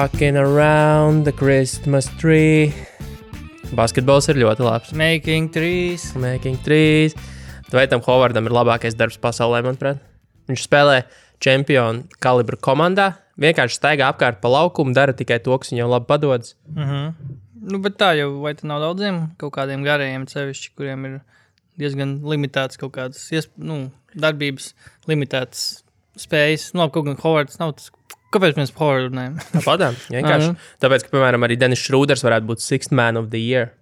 Rocking around the Christmas tree. Basketbols ir ļoti labs. Making trees. Tveitam Hovardam ir labākais darbs pasaulē, manuprāt. Viņš spēlē čempionu kalibru komandā, vienkārši staigā apkārt pa laukumu, dara tikai to, kas viņam labi padodas. Nu, bet tā jau, vai tā nav daudziem kaut kādiem garajiem sevišķi, kuriem ir diezgan limitēts kaut kādas, darbības limitētas spējas. Nu, kaut gan Hovards nav tas. Kāpēc mēs par Hovardu runājam? Tāpatām, vienkārši. Tāpēc, ka, piemēram, arī Dennis Schröders varētu būt Sixth Man of the Year.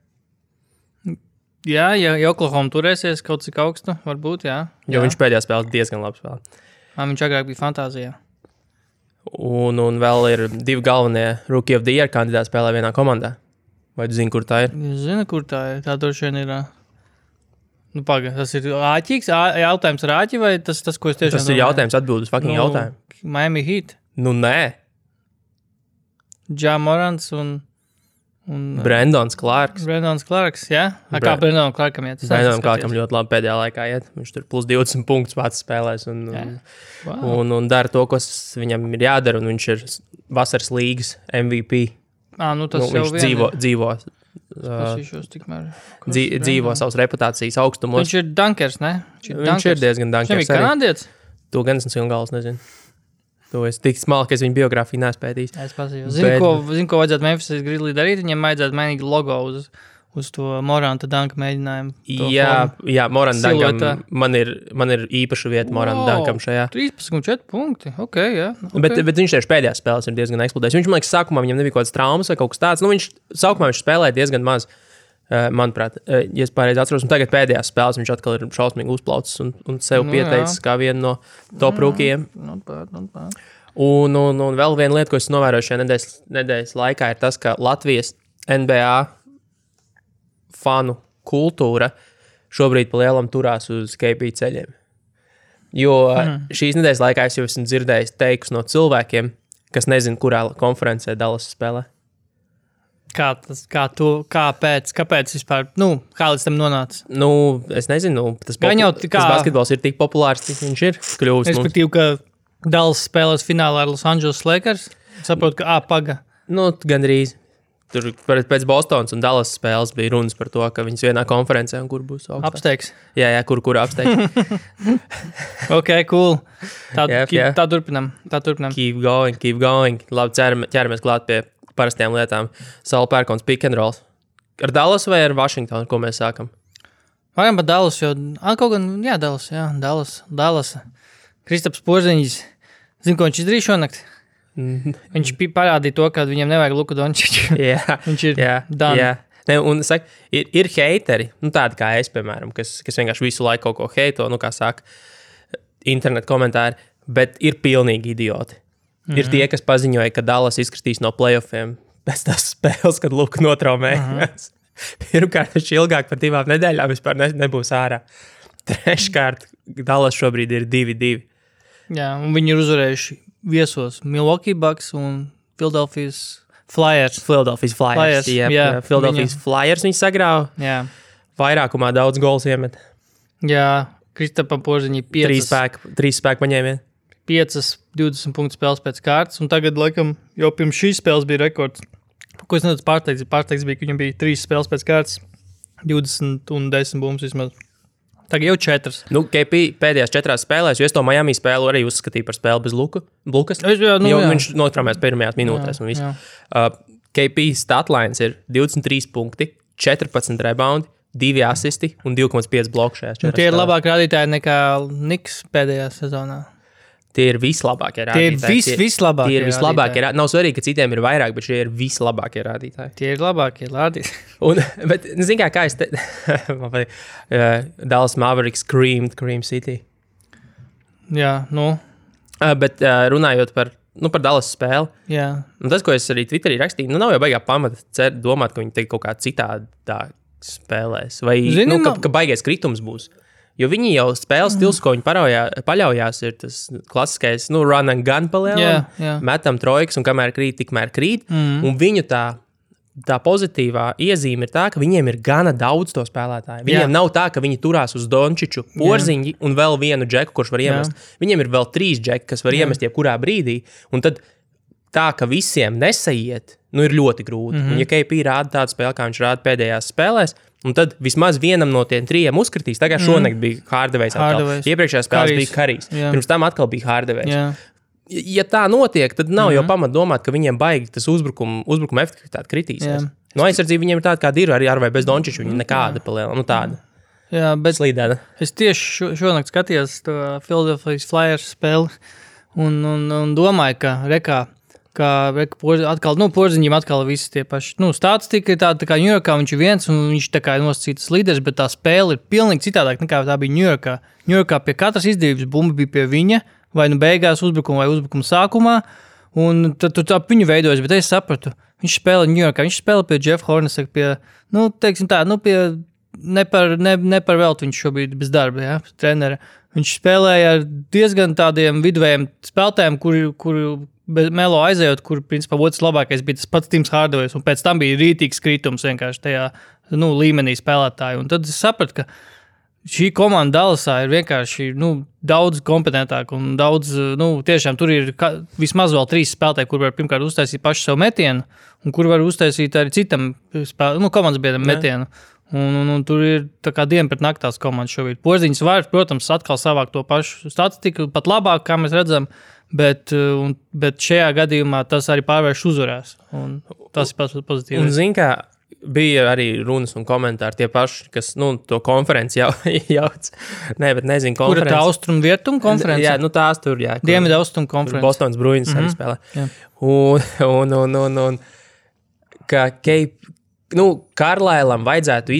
Jā, ja Oklahoma turēsies kaut cik augstu, varbūt, jā. Jo viņš pēdējā spēlē diezgan labi spēlē. Viņš agrāk bija fantāzijā. Un vēl ir 2 galvenie Rookie of the Year kandidāti spēlē vienā komandā. Vai tu zini, kur tā ir? Es zinu, kur tā ir. Tā droši vien ir... Nu, paga, tas ir āķīgs? Jautājums ar āķi vai tas, ko es tiešām... Tas ir jautājums atbildes fucking jautājumu. Miami Heat. Nu, nē. Ja Morants un Brandons Clarks. Jā? Kā Brandonam Clarkam iet? Brandonam Clarkam ļoti labi pēdējā laikā iet. Viņš tur plus 20 punktus pats spēlēs un dara to, kas viņam ir jādara. Un viņš ir vasaras līgas MVP. Tas jau viņš dzīvo savas reputācijas augstumos. Viņš ir dunkers, ne? Viņš ir diezgan dunkers. Viņš ir kanādietis? To gan es galvas nezinu. To es tik smalki, ka es viņu biogrāfiju neespētījis. Es pasīju. Zinu, ko vajadzētu Memphis Grizzlies darīt. Viņiem vajadzētu mainīt logo uz to Moranta Dunka mēģinājumu. Jā, Moranta Dunkam. Man ir īpaša vieta Moranta Dunkam šajā. 13,4 punkti. Ok, jā. Okay. Bet viņš tieši pēdējās spēlēs ir diezgan eksplodējis. Viņš, man liekas, sākumā viņam nebija kaut kāds traumas vai kaut kas tāds. Sākumā viņš spēlēja diezgan maz. Manuprāt, ja es pareizi atceros, un tagad pēdējās spēles viņš atkal ir šausmīgi uzplaucis un sev pieteicis kā vienu no top rūkījiem. Not bad. Un vēl viena lieta, ko es novēroju šajā nedēļas laikā, ir tas, ka Latvijas NBA fanu kultūra šobrīd pa lielam turās uz KP ceļiem. Jo šīs nedēļas laikā es jau esmu dzirdējis teikus no cilvēkiem, kas nezin, kurā konferencē Dallas spēlē. Kāpēc vispār, kā līdz tam nonāca? Es nezinu, tas basketbols ir tik populārs, cik viņš ir kļuvis. Respektīvi, ka Dallas spēlēs finālā ar Los Angeles Lakers, saprotu, ka paga. Gandrīz. Tur pēc Bostonas un Dallas spēles bija runas par to, ka viņas vienā konferencē un kur būs augstāk. Apsteigs. Jā, kur apsteigs. Ok, cool. Tā turpinam. Keep going. Labi, ķeramies klāt pie parastiem lietām. Saul Pērkons pick and roll. Ar Dallas vai ar Washingtonu, ko mēs sākam? Varam par Dallas, jo... Dallas. Kristaps Porziņģis. Zini, ko viņš izdarīja šonakt? Viņš parādīja to, ka viņam nevajag Luku Dončiču. Viņš ir done. Jā. Un saka, ir heiteri, tādi kā es, piemēram, kas vienkārši visu laiku kaut ko heito, kā saka, internet komentāri, bet ir pilnīgi idioti. Ir tie, kas paziņoja, ka Dallas izkritīs no playoffiem pēc tās spēles, kad Luka notraumējās. Pirmkārt, viņš ilgāk par 2 nedēļām vispār nebūs ārā. Treškārt, Dallas šobrīd ir 2-2. Jā, un viņi ir uzvarējuši viesos Milwaukee Bucks un Philadelphia Flyers. Jā, Philadelphia Flyers viņi sagrāva. Jā. Vairākumā daudz gols iemet. Jā, Kristapam Porziņģi 3 spēku paņēmien. 20 punktu spēles pēc kārtas, un tagad, laikam, jau pirms šīs spēles bija rekords. Ko es nedaudz pārsteigts? Pārsteigts bija, ka viņam bija 3 spēles pēc kārtas, 20 un 10 bumbas vismaz. Tagad jau 4. KP pēdējās 4 spēlēs, jo es to Miami spēlu arī uzskatīju par spēli bez Lukas. Jā. Viņš notraumējās pirmajās minūtēs un viss. KP statlines ir 23 punkti, 14 reboundi, 2 asisti un 2,5 bloku šajās 4 spēlēs. Tie ir labāk rādītāji nekā Niks pēdējā sezonā. Tie ir vislabākie rādītāji. Tie ir vislabākie rādītāji. Nav svarīgi, ka citiem ir vairāk, bet šie ir vislabākie rādītāji. Tie ir labākie rādītāji. Bet, zini kā es te... Dallas Mavericks Cream City. Jā, Bet runājot par Dallas spēli. Jā. Un tas, ko es arī Twitterī rakstīju, nav jau baigā pamata domāt, ka viņi te kaut kā citādā spēlēs. Vai, ka baigais kritums būs. Jo viņi jau spēles stils, ko viņi paļaujās, ir tas klasiskais, run and gun palielam, metam trojkas un kamēr krīt, tikmēr krīt. Un viņu tā pozitīvā iezīme ir tā, ka viņiem ir gana daudz to spēlētāju. Viņiem nav tā, ka viņi turās uz Dončiču, Porziņģi un vēl vienu džeku, kurš var iemest. Viņiem ir vēl 3 džeki, kas var iemest jebkurā brīdī. Un tad tā, ka visiem nesaiet, ir ļoti grūti. Un, ja KP rāda tādu spēli, kā viņš rāda pēdējās spēlēs, un tad vismaz vienam no tiem 3 uzkritīs. Tagad šonakt bija Hardaway's atkal. Iepriekšējā spēlēs bija Karijs. Pirms tam atkal bija Hardaway's. Ja tā notiek, tad nav jau pamat domāt, ka viņiem baigi tas uzbrukuma efektivitāte kritīsies. No aizsardzība viņiem ir tāda, kāda ir, arī ar vai bez Dončiča, viņa nekāda paliela, tāda. Jā, bet slīdēna. Es tieši šonakt skatījos to Philadelphia Flyers spēli un domāju, ka atkal, Porziņam atkal visi tie paši, statistika ir tāda, tā kā Ņujorkā viņš ir viens un viņš tā kā ir nosacītas līderis, bet tā spēle ir pilnīgi citādāk nekā tā bija Ņujorkā. Ņujorkā pie katras izdevības bumba bija pie viņa, vai beigās uzbrukuma vai uzbrukuma sākumā, un tad tu tā viņu veidojas, bet es sapratu, viņš spēlē Ņujorkā, viņš spēlē pie Jeff Hornacek, pie, teiksim tā, pie ne par velti viņš šobrīd bez darba, ja, trenera. Viņš spēlēja ar diezgan tādiem viduvējiem spēlētājiem, kuri Melo aizējot, kur principā otrs labākais bija tas pats Tims Hardaway's, un pēc tam bija rītīgs kritums vienkārši tajā līmenī spēlētāju. Un tad es sapratu, ka šī komanda Dallasā ir vienkārši daudz kompetentāka un daudz, tiešām tur ir vismaz vēl 3 spēlētāji, kur var pirmkārt uztaisīt pašu savu metienu, un kur var uztaisīt arī citam komandas biedram metienu. Un tur ir tā kā diena pret naktās komandas šobrīd. Porziņš var, protams, atkal savākt to pašu statistiku, pat labāk, kā mēs redzam, bet šajā gadījumā tas arī pārvērš uzvarēs. Un tas ir pats pozitīvs. Un zin kā, bija arī runas un komentāri tie paši, kas, to konferenci jauc. Nē, bet nezinu, konferenci. Kura tā austrumu-vietumu konferenci? Jā, tās tur, jā. Dienvidu austrumu konferenci. Bostonas Bruins arī spēlē. Jā. Un ka Karlailam vajadzētu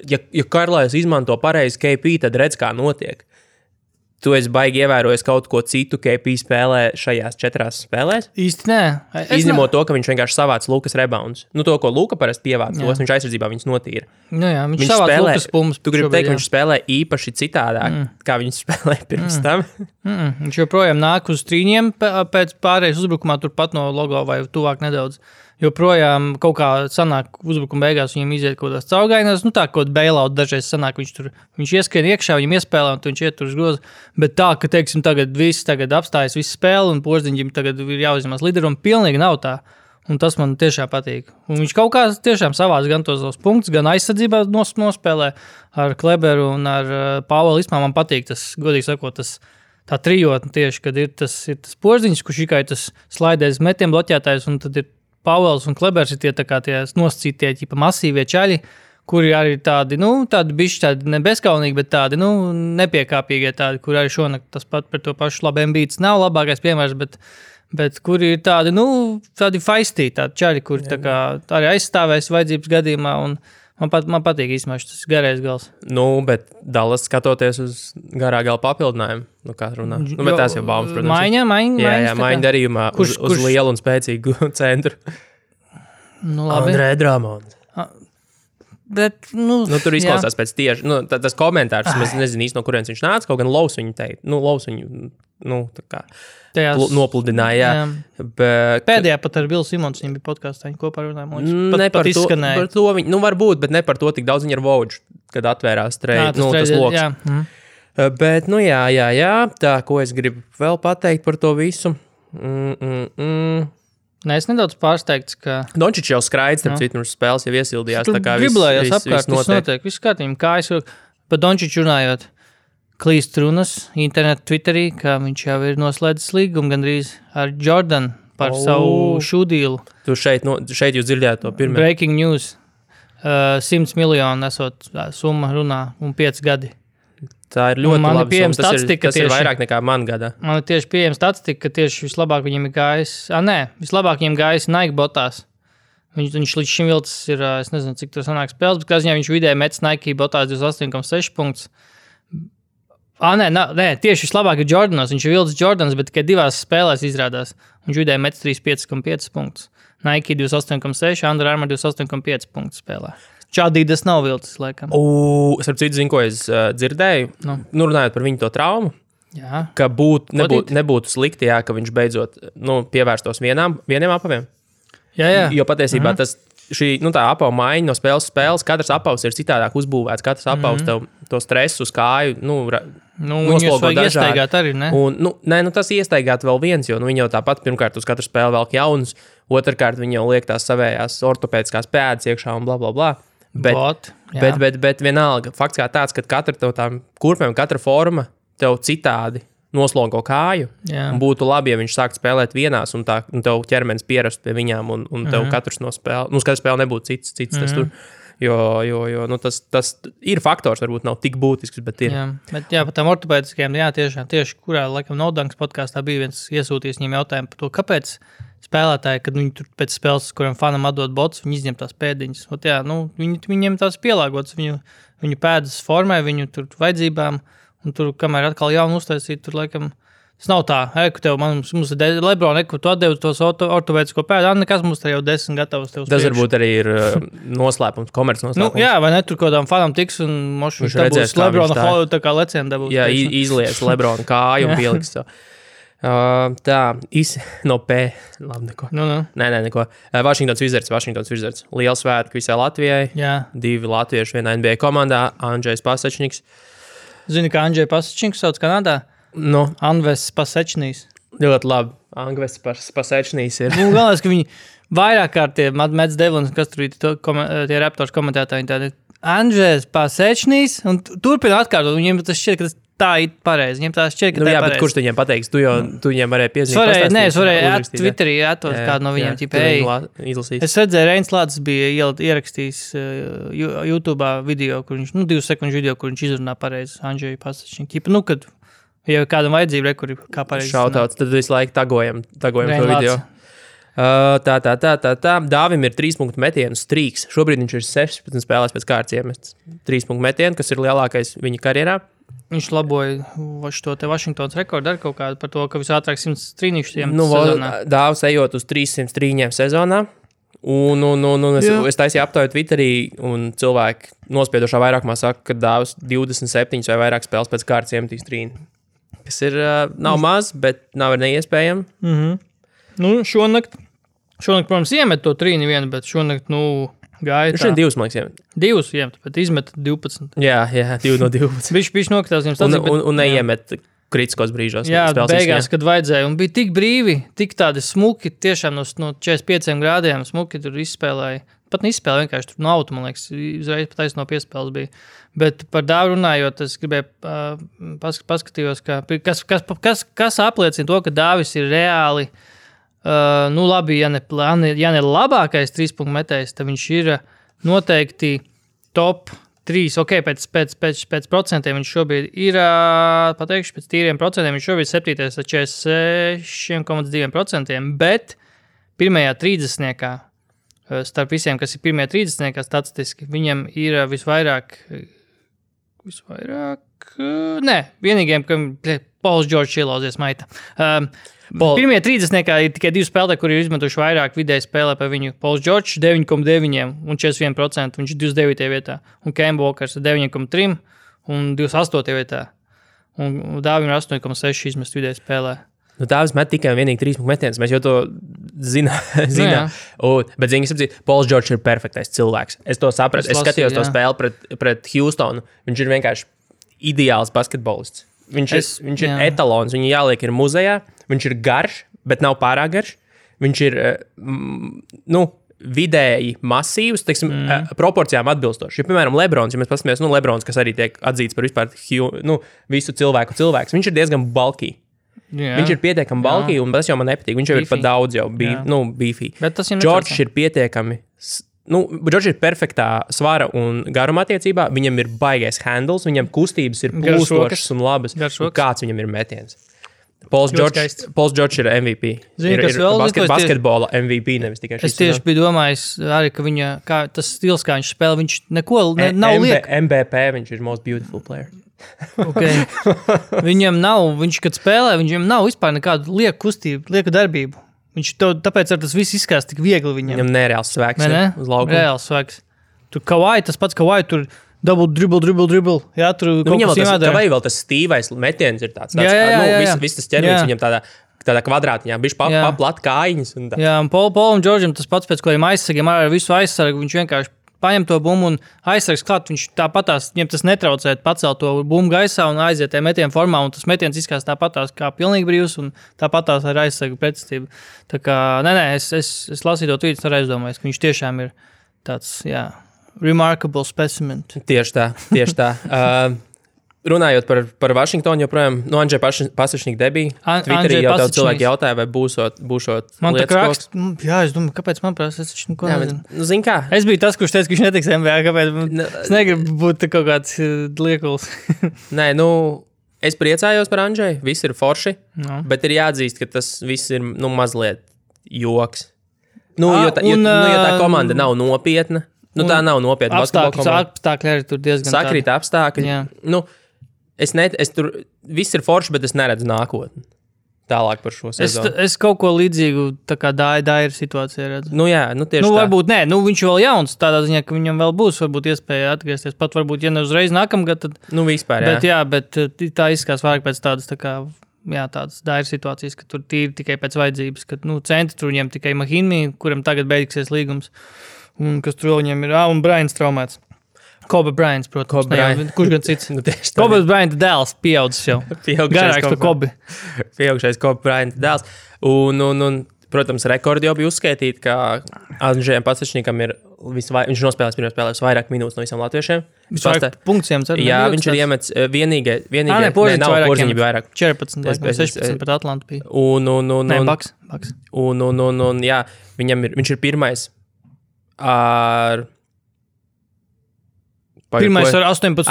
ja Karlails izmanto pareizi KP, tad redz, kā notiek. Tu esi baigi ievērojis kaut ko citu KP spēlē šajās 4 spēlēs? Īsti nē. Izņemot to, ka viņš vienkārši savāc Lukas rebounds. To, ko Luka parasti pievāc, viņš aizsardzībā viņus notīra. Jā, viņš savāc Lukas pumps. Tu gribi teikt, ka viņš spēlē īpaši citādāk, kā viņš spēlē pirms tam? Viņš joprojām nāk uz trīņiem pēc pārējais uzbrukumā turpat no logo vai tuvāk nedaudz. Joprojām kaut kā sanāk uzbrukuma beigās viņam iziet kaut kādās caurgainās, tā kaut bailout dažreiz sanāk, viņš ieskrien iekšā, viņam iespēlē un viņš iet tur uz grozu, bet tā, ka, teiksim, tagad apstājas visu spēli un Porziņģim tagad ir jāuzņemās līderu un pilnīgi nav tā, un tas man tiešām patīk. Un viņš kaut kā tiešām savāc gan tos punktus, gan aizsardzībā nospēlē ar Kleberu un ar Pāvelu Ismā man patīk tas, godīgi sakot, tā trijotne tieši, kad ir tas Porziņš, kurš tikai tas slaidēs metiem bloķētājs un tad ir Pāvels un Klebers ir tie nosacītie masīvie čaļi, kuri arī tādi, tādi bišķi tādi nebezkaunīgi, bet tādi, nepiekāpīgie tādi, kur arī šonakt tas pat par to pašu labi Embiids nav labākais piemērs, bet kuri ir tādi, tādi feistī, tādi čaļi, kuri tā kā arī aizstāvēs vajadzības gadījumā un man patīk īstenībā šis garais gals. Bet Dallas skatoties uz garā gala papildinājumu, kā runā. Bet tās jau baumas, protams. Maiņa darījumā kurš lielu un spēcīgu centru. Labi. Andrē Dramons. Bet, tur izklausās pēc tieši, tas komentārs, mēs nezinu īsti, no kurienes viņš nāca, kaut gan Lovs viņu teikt, Lovs viņu, tā kā nopludināja, jā. Bet, pēdējā pat ar Bilu Simons viņam bija podkāstā, viņi kopā runāja, pat izskanēja. Par to viņi, var būt, bet ne par to tik daudz viņi ar Voģu, kad atvērās tas loks. Jā. Bet, jā, tā, ko es gribu vēl pateikt par to visu. Nē, es nedaudz pārsteigts, ka... Dončičs jau skraidz, starp citu, spēles jau iesildījās. Tur driblējās apkārt, viss notiek. Viss kārtījumi, kā es par Dončiču runājot, klīst runas internetu Twitterī, ka viņš jau ir noslēdzis līgumu gandrīz ar Jordan par savu šūdīlu. Tu šeit jūs dzirdējāt to pirmie. Breaking news. 100 miljonu esot summa runā un 5 gadi. Tā ir ļoti laba summa. Tas ir vairāk nekā man gadā. Man ir tieši pieejama statistika, ka tieši vislabāk viņam ir gājis... vislabāk viņam gājis Nike botās. Viņš līdz šim vilcis ir, es nezinu, cik tur sanāk spēles, bet kā ziņā viņš vidēji metis Nike botās 28,6 punktus. Nē, tieši vislabāk ir Jordanos. Viņš ir vilcis Jordanos, bet tikai 2 spēlēs izrādās. Viņš vidēji metis 35,5 punktus. Nike 28,6, Under Armour 28,5 punktus spēlē. Čādīdas nav vilcis, laikam. Starp citu, zinu, ko es dzirdēju. Runājot par viņu to traumu. Jā. Ka nebūtu slikti, ka viņš beidzot pievērstos vieniem apaviem. Jā. Jo patiesībā tā apava maiņa no spēles, katrs apavs ir citādāk uzbūvēts. Katrs apavs tev to stresu uz kāju noslogo dažādi. Iestaigāt arī, ne? Un, tas iestaigāt vēl viens, jo viņi jau tāpat pirmkārt uz katru spēli velk jaunus, otrkārt viņi jau liek tās savējās ortopēdiskās pēdas iekšā un blablabla. Bet vienalga, fakts kā tāds, ka katra tev tām kurpēm, katra forma tev citādi noslogo kāju. Un būtu labi, ja viņš sāktu spēlēt vienās, un tev ķermenis pierastu pie viņām, un tev katrs no spēle, katra spēle nebūtu cits tas tur. Jo tas ir faktors, varbūt nav tik būtisks, bet ir. Jā, par tām ortopēdiskajām, tieši kurā, laikam, Nodanks podkāstā bija viens iesūtījis viņiem jautājumu par to, kāpēc spēlētāji, kad viņi tur pēc spēles, kuram fanam atdod bots, viņi izņem tās pēdiņas. Viņiem tās pielāgotas, viņu pēdas formē, viņu tur vajadzībām, un tur, kamēr atkal jaunu uztaisīt, tur, laikam, tas nav tā, ka tev, mums ir Lebron, ko tu atdevi tos ortopēdisko pēdu, nekas mums te jau 10 gatavs tev tas varbūt arī ir noslēpums, komerc noslēpums. Vai ne, tur kādām fanam tiks, un mošu dabūs Lebrona Hollywood, tā kā leciena dabūs. Jā, izlies Lebrona kāju un pieliks to. No P. Labi, neko. Nē, neko. Washingtons Wizards. Liels svētki visai Latvijai. Jā. 2 latvieši vienā NBA komandā. Andžejs Pasečniks. Zini, kā Andžej Pasečniks sauc Kanādā? Anves Pasečnīs. Ļoti labi. Anves Pasečnīs ir. Galvenais, ka viņi vairāk kārt tie Mets Devlins, kas tur ir tie Raptors komentētāji, tādi Andžejs Pasečnīs, un turpina atkārtot. Viņiem tas šķiet, ka tas tā ir pareizi. Viņiem tā šķiet, ka tā ir pareizi. Bet kurš viņiem pateiks? Tu viņiem varēji piezīmēt. Es varēju Twitterī atot kādu no viņiem. Es redzēju, Reins Lācis bija ierakstījis YouTube'ā video, kur viņš, 2 sekundžu video, kur viņš izrunā pareizi Andžeju Pasečniku. Kad ja kādam vajadzība, kur kā pareizi. Šautauts, tad visu laiku tagojam to video. Dāvim ir 3-punktu metienu strīks. Šobrīd viņš ir 16 spēlēs pēc kārtas iemests 3-punktu metienu, kas ir lielākais viņa karjerā. Viņš laboja šo te Washingtons rekordu ar kaut kādu par to, ka visātrāk 100 trīnīšus sezonā. Dāvs ejot uz 300 trīņiem sezonā. Es taisīju aptauju Twitterī, un cilvēki nospiedošā vairākumā saka, ka Dāvs 27 vai vairāk spēles pēc kārtas iemetīs trīni. Kas ir, nav maz, bet nav neiespējami. Šonakt, protams, iemet to trīni vienu, bet šonakt, gāja tā. Viņš ir 2, man liekas, 2 iemet, bet izmet 12. Jā, 2 no 12. Viņš nokritās viņam stāstīt. Un neiemet kritiskos brīžos. Jā, beigās, kad vajadzēja. Un bija tik brīvi, tik tādi smuki, tiešām no 45 grādiem smuki tur izspēlēja. Pat neizspēlēja, vienkārši tur no auto, man liekas, uzreiz pat no piespēles bija. Bet par Dāvu runājot, es gribēju paskatījos, kas apliecina to, ka Dāvis ir reāli labi, ja ne labākais 3-punktu metējs, tad viņš ir noteikti top 3. Ok, pēc procentiem viņš šobrīd ir, pateikšu, pēc tīriem procentiem viņš šobrīd 7. ar 46,2%, bet pirmajā 30-niekā, starp visiem, kas ir pirmajā 30-niekā statistiski, viņam ir visvairāk, vienīgiem, ka Pauls Džordžs ielauzies maita. Pirmie 30-niekā ir tikai 2 spēlētāji, kuri ir izmetuši vairāk vidēji spēlē par viņu. Pauls Džordžs 9,9 un 41%, viņš ir 29. vietā. Un Kemba Walkers 9,3 un 28. vietā. Un Dāvim ir 8,6 izmest vidēji spēlē. Dāvis met tikai un vienīgi 3 metienus. Mēs jau to zinām. Bet Pauls Džordžs ir perfektais cilvēks. Es to sapratu. Es skatījos to spēli pret Houstonu. Viņš ir vienkārši ideāls basketbolists. Viņš ir etalons, viņu jāliek ir muzejā, viņš ir garš, bet nav pārāk garš. Viņš ir, vidēji masīvs, teiksim, proporcijām atbilstoši. Ja, piemēram, Lebrons, ja mēs paskatāmies, Lebrons, kas arī tiek atzīts par vispār visu cilvēku cilvēks, viņš ir diezgan bulky. Viņš ir pietiekami bulky, un tas jau man nepatīk. Viņš jau ir pat daudz jau beefy. Džordžs ir pietiekami... Džordžs ir perfektā svara un garuma attiecībā. Viņam ir baigais handles, viņam kustības ir plūstošas un labas. Kāds viņam ir metiens? Pauls Džordžs ir MVP. Basketbola MVP, nevis tikai šis. Es tieši biju domājis arī, ka tas stils, kā viņš spēlē, viņš neko nav liek. MVP, viņš ir most beautiful player. Okay. Viņam nav, kad spēlē, viņam nav vispār nekādu lieku kustību, lieku darbību. Tāpēc ar tas viss izskās tik viegli viņam. Viņam nereāls svēks uz laukuma. Reāls svēks. Tur Kawhi, tas pats Kawhi, tur double dribble. Jā, tur viņam Kawhi vēl tas stīvais metiens ir tāds. Viss tas ķermenis viņam tādā kvadrātiņā, bišķi plat kājiņas. Jā, un Paulam Džordžam tas pats pēc kādiem aizsargiem, ar visu aizsargu, viņš vienkārši paņem to bumbu un aizsargs klāt. Viņš tāpatās, viņam tas netraucē pacelt to bumbu gaisā un aiziet metienu formā, un tas metiens izskatās tāpatās kā pilnīgi brīvs, un tāpatās ar aizsargu pretestību. Tā kā, es lasīju to tvītu, ar aizdomājos, ka viņš tiešām ir tāds, remarkable specimen. Tieši tā. Runājot par Vašingtonu, joprojām, Andžeja Pasačnika debija. Twitterī jau daudz cilvēki jautāja, vai būšot man lietas koks. Jā, es domāju, kāpēc man prasa, es taču neko nezinu. Zini kā? Es biju tas, kurš teica, ka viņš netiks NBA, kāpēc es negribu būt kaut kāds liekuls. Nē, es priecājos par Andžeju, viss ir forši, bet ir jāatzīst, ka tas viss ir, mazliet joks. Jo tā komanda nav nopietna, tā nav nopietna basketbola komanda. Apstākļi arī tur diezgan sakrīt apstākļi. Es tur viss ir forši, bet es neredzu nākotni tālāk par šo sezonu. Es kaut ko līdzīgu tā kā Dairu situācijā redzu. Tieši tā. Varbūt viņš vēl jauns, tādā ziņā, ka viņam vēl būs varbūt iespēja atgriezties. Pat varbūt, ja ne uzreiz nākamgad, tad... Vispār, jā. Bet tā izskatās vairāk pēc tādas tā kā, tādas Dairu situācijas, ka tur tīri tikai pēc vajadzības, ka, centri tur viņam tikai Mahinmi, kuram tagad beigsies līgums, un kas tur viņam ir, un Bryants traumēts. Kobe Bryants, protams. Kurš gan cits? Kobe Bryant dēls pieaudzis jau. Garāks par Kobe. Pieaugšais Kobe Bryant dēls. Un, protams, rekordi jau bija uzskaitīti, ka Andžejam Pasačnikam ir viņš nospēlēs pirmajā spēlē vairāk minūtes no visiem latviešiem. Punktiem cer. Jā, viņš ir iemets vienīgie. Porziņi bija vairāk. 14, 16 pret Atlantu bija. Baks. Un, jā, viņš ir pirmais ar... Pirmais ar 18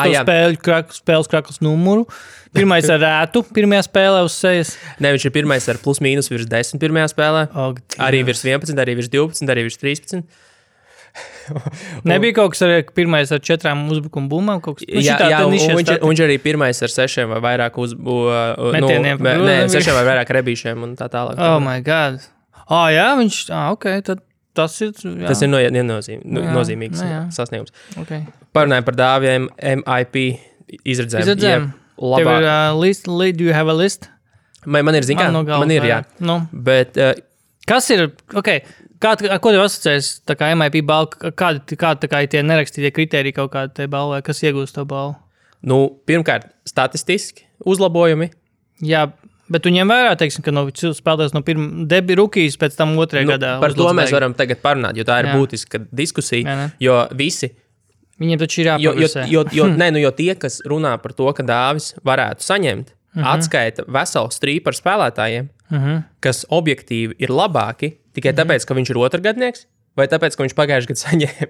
spēles kraklas numuru. Pirmais ar rētu pirmajā spēlē uz sejas. Viņš ir pirmais ar plus mīnus virs 10 pirmajā spēlē. Arī virs 11, arī virs 12, arī virs 13. Nebija kaut kas ar pirmais ar 4 uzbrukuma bumbām? Viņš arī pirmais ar 6 vai vairāk metieniem. 6 vai vairāk rebīšiem un tā tālāk. Oh my God. Jā, viņš, tad. Tas ir nozīmīgs sasniegums. Okay. Parunājam par dāviem MIP izredzēm. Tev ir list, do you have a list? Man ir, man ir, jā. Bet, kas ir, ko tev asociēs tā kā MIP balva, kādi tā kā tie nerakstītie kriteriji kaut kādi te balvai, kas iegūst to balvu? Pirmkārt, statistiski uzlabojumi. Jā, bet tu ņem vērā, teiksim, ka spēlētājs no debi rukijas pēc tam otrajā gadā. Par to mēs varam tagad parunāt, jo tā ir būtiska diskusija, jo visi... Viņiem taču ir jāpagusē. Jo tie, kas runā par to, ka dāvis varētu saņemt, atskaita veselu strīpu par spēlētājiem, kas objektīvi ir labāki, tikai tāpēc, ka viņš ir otrgadnieks, vai tāpēc, ka viņš pagājuši gadu saņēma.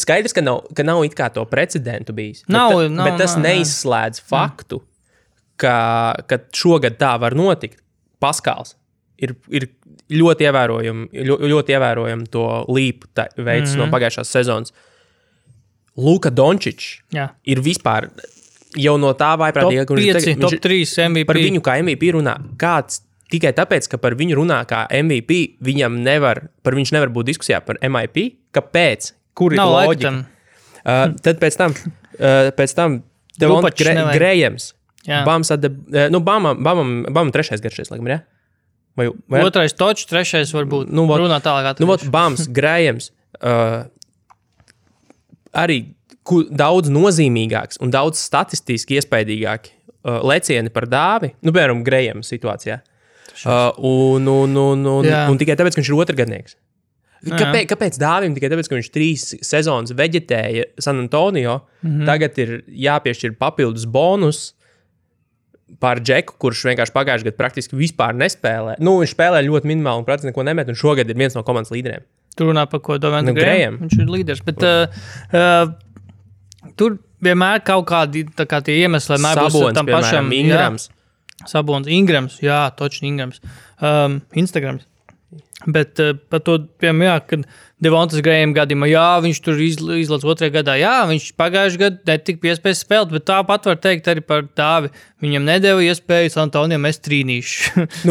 Skaidrs, ka nav it kā to precedentu bijis. Bet tas neizslēdz faktu, ka šogad tā var notikt. Paskals ir ļoti ievērojami to līpu veids no pagājušās sezonas. Luka Dončičs ir vispār jau no tā vaiprātīgāk. Top 3 MVP. Par viņu kā MVP runā. Kāds tikai tāpēc, ka par viņu runā kā MVP, viņš nevar būt diskusijā par MIP. Kāpēc? Kur ir loģika? Tad pēc tam Grējams. Bamam trešais garšais, laikam, jā? Vai? Otrais Točs, trešais varbūt. Runā tālāk atvešu. Bams, Grējams, arī daudz nozīmīgāks un daudz statistiski iespaidīgāki lecieni par dāvi, piemēram, Grējams situācijā. Un tikai tāpēc, ka viņš ir otrgadnieks. Kāpēc dāvim? Tikai tāpēc, ka viņš 3 sezonas veģetēja San Antonio, tagad ir jāpiešķir papildus bonus par Džeku, kurš vienkārši pagājušajā gadā praktiski vispār nespēlē. Viņš spēlē ļoti minimāli un praktiski neko nemet, un šogad ir viens no komandas līderiem. Tur runā par ko Dovanta Grējam. Viņš ir līderis, bet tur vienmēr kaut kādi tie iemesli būs tam pašam. Ingrams. Sabons, Ingrams, točni Ingrams. Instagrams. Bet par to, piemēram, kad Devontas Grējam gadījumā, viņš tur izlaiž otrajā gadā. Viņš pagājušajā gadā netika piespējis spēlēt, bet tāpat var teikt arī par Dāvi. Viņam nedēva iespēju San Antonio mest trīnīšu.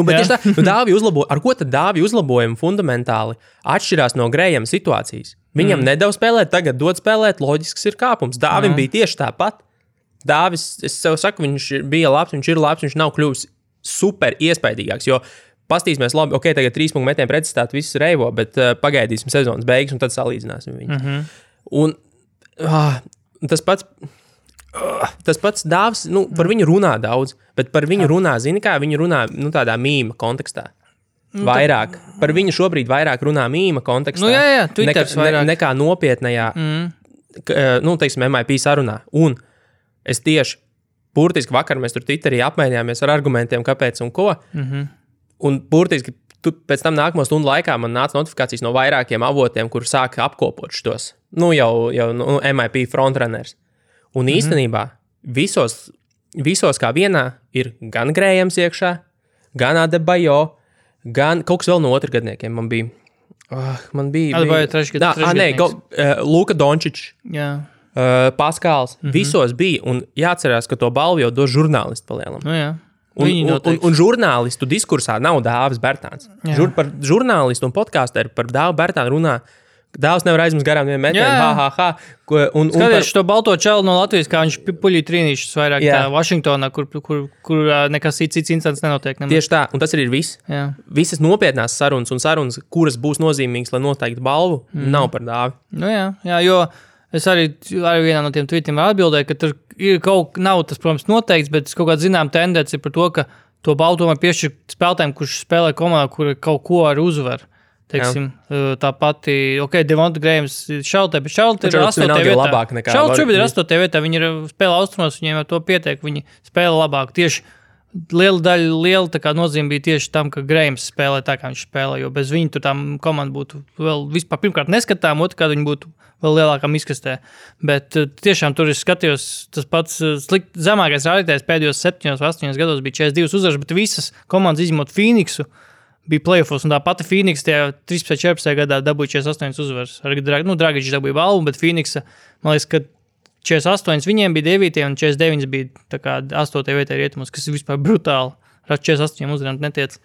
Bet tieši tā, Dāvi uzlaboja. Ar ko tad Dāvi uzlabojumi fundamentāli atšķirās no Grējama situācijas? Viņam nedēva spēlēt, tagad dod spēlēt, loģisks ir kāpums. Dāvim bija tieši tāpat. Dāvis, es sev saku, viņš bija labs, viņš ir labs, viņš nav kļuvis super iespaidīgāks, jo pastīsimies labi, tagad 3 punktu metienu pretstātu visus reivo, bet pagaidīsim sezonas beigas un tad salīdzināsim viņu. Un tas pats Dāvs, par viņu runā daudz, bet par viņu runā, viņi runā, tādā mīma kontekstā. Vairāk. Par viņu šobrīd vairāk runā mīma kontekstā. Jā, Twitters vairāk. Nekā nopietnajā, teiksim, MIP sarunā. Un es tieši, burtiski vakar mēs tur Twitterī apmainījāmies ar argumentiem, kāpēc un ko. Un burtiski pēc tam nākamo stundu laikā man nāca notifikācijas no vairākiem avotiem, kur sāka apkopot šitos. Jau MIP frontrunners. Un īstenībā visos kā vienā ir gan Grējams iekšā, gan Adebayo, gan kaut kas vēl no otrgadniekiem. Man bija Adebayo trešgadnieks. Luka Dončičs, Paskāls. Visos bija. Un jāatcerās, ka to balvu jau dos žurnālisti palielam. Jā. Un žurnālistu diskursā nav Dāvis Bertāns. Par žurnālistu un podkāsteru par Dāvu Bertānu runā. Dāvs nevar aizmest garām vienu metienu. Skaties to balto čelu no Latvijas, kā viņš puļī trīnīšas vairāk tā Vašingtonā, kur nekas cits incidents nenotiek. Tieši tā, un tas arī ir viss. Visas nopietnās sarunas un sarunas, kuras būs nozīmīgas, lai noteikti balvu, nav par Dāvi. Jā, jo es arī vienā no tiem tweetiem atbildēju, ka tur ir nav tas, protams, noteikts, bet kaut kāda zinām tendence par to, ka to balvu tomēr piešķir spēlētājiem, kurš spēlē komandā, kur kaut ko ar uzvaru. Teiksim, tā pati, Devonta Grējams Šaltē, bet Šaltē ir 8. vietā. Šaltē šobrīd ir 8. vietā, viņi ir spēlē austrumos, viņiem ar to pietiek, viņi spēlē labāk. Tieši liela tā kā nozīme bija tieši tam, ka Grējams spēlē tā, kā viņš spēlē, jo bez viņa tur tā komanda būtu vēl vispār pirmkārt neskatām, otrkārt viņi būtu vēl lielākam izkastē. Bet tiešām tur es skatījos, tas pats zemākais rādītājs pēdējos 7-8 gados bija 42 uzvaras, bet visas komandas izņemot Phoenixu bija playoffs, un tā pati Phoenix tajā 13-14 gadā dabūja 48 uzvaras. Dragičs dabūja balvu, bet Phoenixa, man liekas, ka 48 viņiem bija 9, un 49 bija tā kā 8. vietā rietumos, kas ir vispār brutāli. 48 uzvarām netiec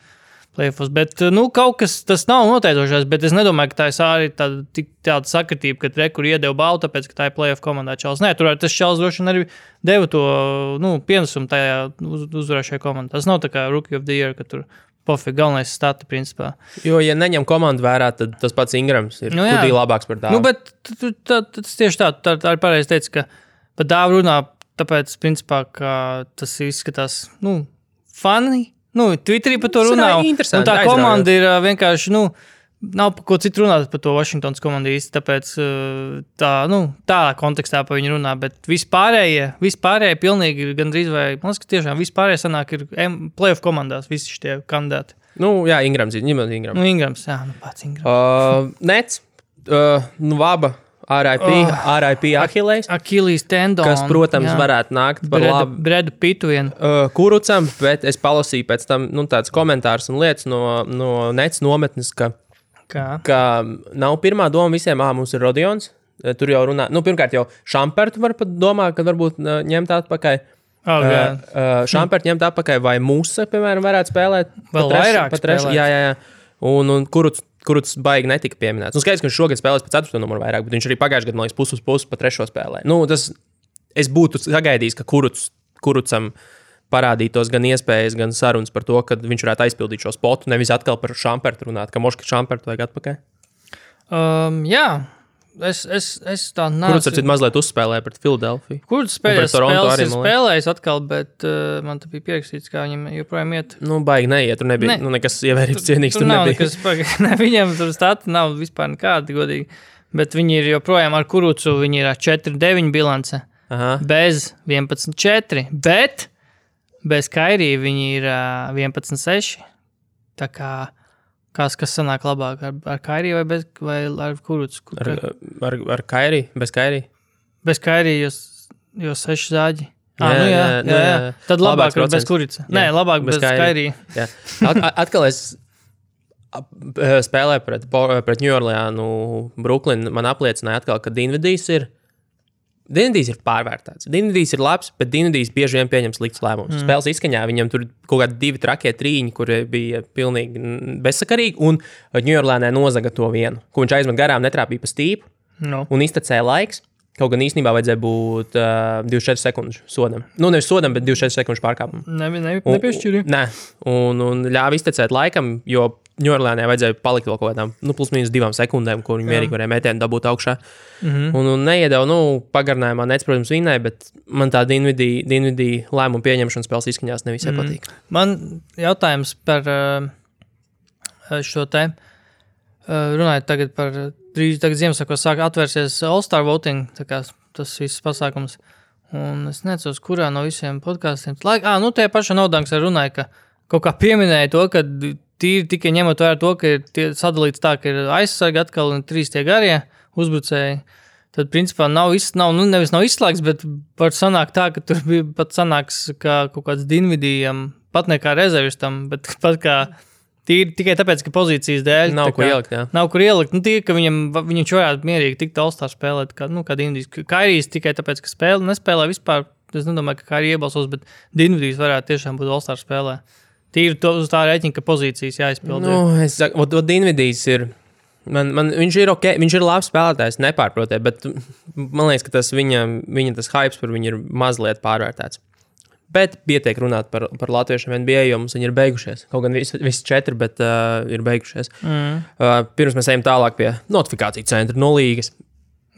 playoffs. Bet, kaut kas tas nav noteicošais, bet es nedomāju, ka tā ir arī tāda sakritība, ka rekur iedeva balvu, tāpēc, ka tā ir playoff komandā čals. Nē, tur tas čals droši vien arī deva to, pienesumu tajā uzvarēšajā komandā. Tas nav tā kā Rookie of the Year, ka tur pofīgi, galvenais stati, principā. Jo, ja neņem komandu vērā, tad tas pats Ingrams ir kudī labāks par Dāvu. Bet tas tieši tā ir pareizi teica, ka par Dāvu runā, tāpēc, principā, ka tas izskatās, fani, Twitterī par to runā. Un tā komanda ir vienkārši, nav par ko citu runāt par to Washingtons komandu īsti, tāpēc tā kontekstā par viņu runā, bet vispārējie pilnīgi gandrīz vai, man liekas, ka tiešām vispārējie sanāk ir playoff komandās visi šitie kandidāti. Ingrams. Ingrams, pats Ingrams. Nets, Vaba, RIP Achilles. Achilles tendon. Kas, protams, varētu nākt par labu. Bredu Pitu vien. Kurucam, bet es palasīju pēc tam, tāds komentārs un lietas no Nets nometnes, ka nav pirmā doma visiem, mums ir Rodions, tur jau runā, pirmkārt jau Šampertu var pat domāt, ka varbūt ņemt atpakaļ. Šampertu ņemt atpakaļ, vai Musa, piemēram, varētu spēlēt. Vēl vairāk spēlēt. Jā. Un Kurucs baigi netika pieminēts. Skaidrs, ka viņš šogad spēlēs pa 4. numuru vairāk, bet viņš arī pagājušajā gadā, man liekas, pusi uz pusi pa 3. spēlē. Es būtu sagaidījis, ka Kurucam parādītos gan iespējas, gan sarunas par to, ka viņš varētu aizpildīt šo spotu, nevis atkal par Šampertu runāt, ka moška Šampertu vajag atpakaļ. Jā, es tā nācu. Kurucs ar citu mazliet uzspēlēja pret Filadelfiju. Kurucs spēlēs atkal, bet man te bija pierakstīts, kā viņam joprojām iet. Baigi neiet, tur nebija, nekas ievērības cienīgs tur nebija. Viņam tur stati nav vispār nekādi, godīgi, bet viņi ir joprojām ar Kurucu, viņi ir 4-9 bilance, bez 11-4, bet bez Kairī viņi ir 11-6. Tā kā, kas sanāk labāk, ar Kairī vai ar Kurucu? Ar Kairī, bez Kairī? Bez Kairī, jo 6 zāģi. Jā. Tad labāk bez Kuruca. Nē, labāk bez Kairī. Atkal es spēlēju pret New Orleanu, Brooklyn, man apliecināja atkal, ka Dinvidijs ir pārvērtāts. Dinvidijs ir labs, bet Dinvidijs bieži vien pieņem slikts lēmums. Spēles izskaņā viņam tur kaut kādi 2 trakie trīņi, kuri bija pilnīgi bezsakarīgi, un New Orleanē nozaga to vienu, ko viņš aizmet garām, netrāpīja pa stīpu, un iztecēja laiks. Kaut gan īstenībā vajadzēja būt 24 sekundžu sodam. Nu, nevis sodam, bet 24 sekundžu pārkāpumu. Nepiešķirju. Nē, un ļāva iztecēt laikam, jo Ņūorleānai vajadzēja palikt vēl kaut kādām, plus mīnus 2 sekundēm, kur viņi mierīgi varēja metienu dabūt augšā. Un neiedeva, pagarinājumā nec, protams, vinnēja, bet man tā Dinvidī lēmumu pieņemšana spēles izskaņās nevisai patīk. Man jautājums par šo te, runājot tagad par, drīz tagad Ziemassvētkos sāk atvērsies All-Star voting, tā kā tas viss pasākums. Un es necos, kurā no visiem podkāstiem. Tie paši Naudanks arī runāja, ka kaut kā pieminēja to, ka tīri tikai ņemot vērā to, ka ir sadalīts tā, ka ir aizsargi atkal un 3 tie garie uzbrucēji. Tad, principā, nevis nav izslēgts, bet var sanākt tā, ka tur bija pat sanāks kā kaut kāds Dinvidijam, pat ne kā rezervistam, bet pat kā tīri tikai tāpēc, ka pozīcijas dēļ. Nav kur ielikt, jā. Nav kur ielikt. Tīri, ka viņš varētu mierīgi tikt All-Star spēlēt, kā Dinvidijs. Kairijs tikai tāpēc, ka nespēlē vispār. Es nedomāju, ka Kairija iebalsos, bet Dinvidijs varētu tiešām būt All-Star spēlē. Tīri uz tā rēķina, ka pozīcijas jāizpilda. Es saku, Dinvidijs ir, viņš ir ok, viņš ir labs spēlētājs, nepārprotē, bet man liekas, ka tas viņa tas hypes par viņu ir mazliet pārvērtēts. Bet pietiek runāt par latviešiem NBA, jo mums viņi ir beigušies. Kaut gan visi 4, bet ir beigušies. Pirms mēs ejam tālāk pie notifikāciju centra no līgas.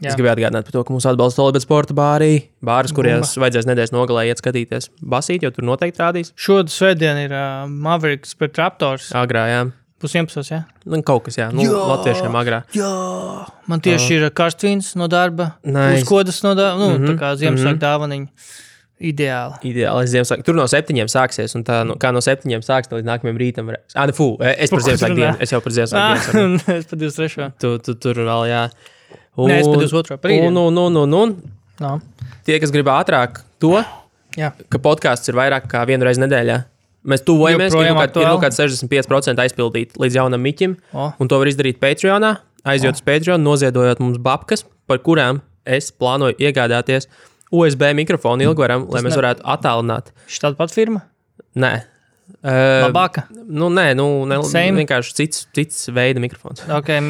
Es gribēju atgādināt par to, ka mūs atbalsta Olibet sporta bāris, kurās vajadzēs nedēļas nogalē iet skatīties basīt, jo tur noteikti rādīs. Svētdien ir Mavericks pret Raptors. Agrā, jā. 11, jā? Kaut kas, jā. Latviešiem agrā. Jā, man tieši ir karstvīns no darba, uzkodas no darba, tā kā Ziemassvētku dāvaniņa. Ideāli. Ziemassvētku. Tur no 7 sāksies, un tā, kā no 7 sāks, līdz nākamajam rītam varēs. Es par Ziemassvētku dienu. Es jau par Ziemassvētku dienu. Es par 23. Tu tur vēl, jā. Nē, es par 22. par rītdienu. Tie, kas grib ātrāk to, ka podcasts ir vairāk kā 1 reizi nedēļā. Mēs tuvojamies, ir kaut kāds 65% aizpildīt līdz jaunam miķim, un to var izdarīt Patreonā, aizjot uz Patreon, noziedojot mums babkas, par kurām es plānoju iegādāties USB mikrofonu ilgvaram, lai mēs varētu attālināt. Štāda pat firma? Nē. Labāka? Vienkārši cits veida mikrofons. Okay.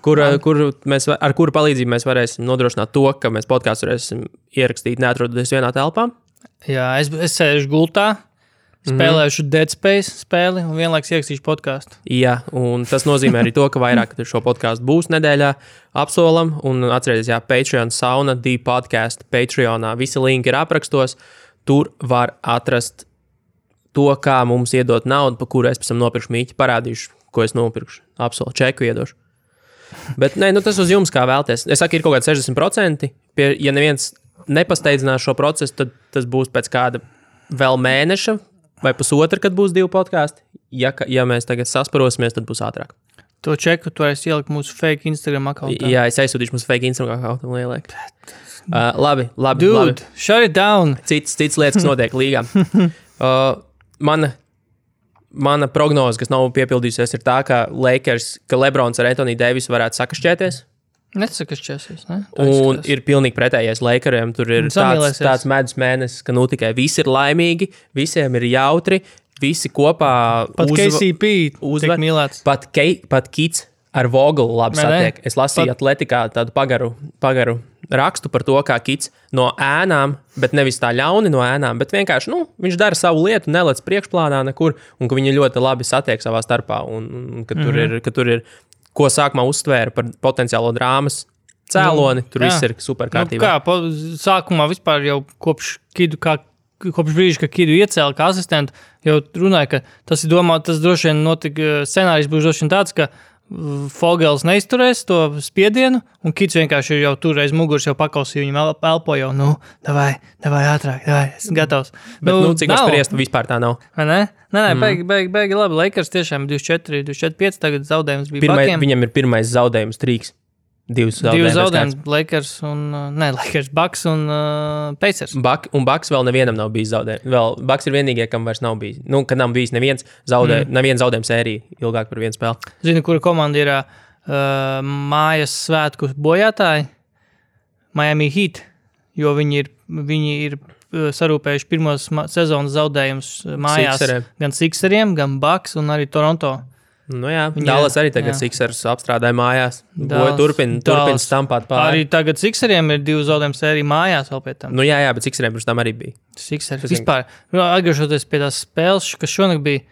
Ar kuru palīdzību mēs varēsim nodrošināt to, ka mēs podcastu varēsim ierakstīt neatrodoties vienā telpā. Jā, es sēžu gultā, spēlēšu Dead Space spēli un vienlaiks ierakstīšu podcastu. Jā, un tas nozīmē arī to, ka vairāk šo podcastu būs nedēļā apsolam, un atcerieties, Patreon sauna, D-podcast, Patreonā, visi linki ir aprakstos, tur var atrast to, kā mums iedot naudu, pa kuru es pēc tam nopirkšu mīķi, parādīšu, ko es nopirkšu. Absolūti, čeku iedošu. Bet tas uz jums kā vēlties. Es saku, ir kaut kāds 60%. Ja neviens nepasteidzinās šo procesu, tad tas būs pēc kāda vēl mēneša vai pusotra, kad būs 2 podkāsti. Ja mēs tagad sasparosimies, tad būs ātrāk. To čeku tu varēsi ielikt mūsu fake Instagram akauntā. Jā, es aizsūtīšu mūsu fake Instagram akauntā. Labi. Dude, shut it down. Cits lietas, kas notiek līgā. Mana prognoze, kas nav piepildījusies, ir tā, ka Lebrons ar Anthony Davisu varētu sakašķēties. Nesakašķēsies, ne? Un ir pilnīgi pretējais Lakeriem. Tur ir tāds medus mēnesis, ka tikai visi ir laimīgi, visiem ir jautri, visi kopā pat KCP tiek mīlēts. Pat Kits ar Vogelu labi satiek. Es lasīju Atletikā tādu pagaru rakstu par to, kā Kits no ēnām, bet nevis tā ļauni no ēnām, bet vienkārši, viņš dara savu lietu, nelec priekšplānā nekur, un ka viņi ļoti labi satiek savā starpā, un ka tur ir, ko sākumā uztvēra par potenciālo drāmas cēloni, tur viss ir super kārtībā. Sākumā vispār jau kopš brīža, ka Kidu iecēla kā asistentu, jau runāja, ka tas droši vien notika, scenārijs būs droši vien tāds, ka Fogels neizturēs to spiedienu, un Kits vienkārši ir jau tur aiz muguras, jau pakausīja, viņam elpo jau, davai, ātrāk, esmu gatavs. Bet, cik var spriest, vispār tā nav. Vai ne? Nē, beigi labi. Lakers tiešām 24-5, tagad zaudējums bija Buckiem. Viņam ir pirmais zaudējums trīks. 2 zaudējums, Lakers un, Bucks un Pacers. Bucks vēl nevienam nav bijis zaudējums. Bucks ir vienīgie, kam vairs nav bijis. Kad nav bijis neviens zaudējums sērija ilgāk par vienu spēli. Zini, kura komanda ir mājas svētku bojātāji? Miami Heat, jo viņi ir sarūpējuši pirmos sezonas zaudējumus mājās. Gan Sixeriem, gan Bucks un arī Toronto. Nu jā, Dallas arī tagad Sixers apstrādāja mājās. Turpin stampāt pāri. Arī tagad Sixeriem ir 2 zaudējumu sērija mājās vēl pie tam. Nu jā, bet Sixeriem pirms tam arī bija. Sixers vispār. Atgriežoties pie tās spēles, kas šonakt bija.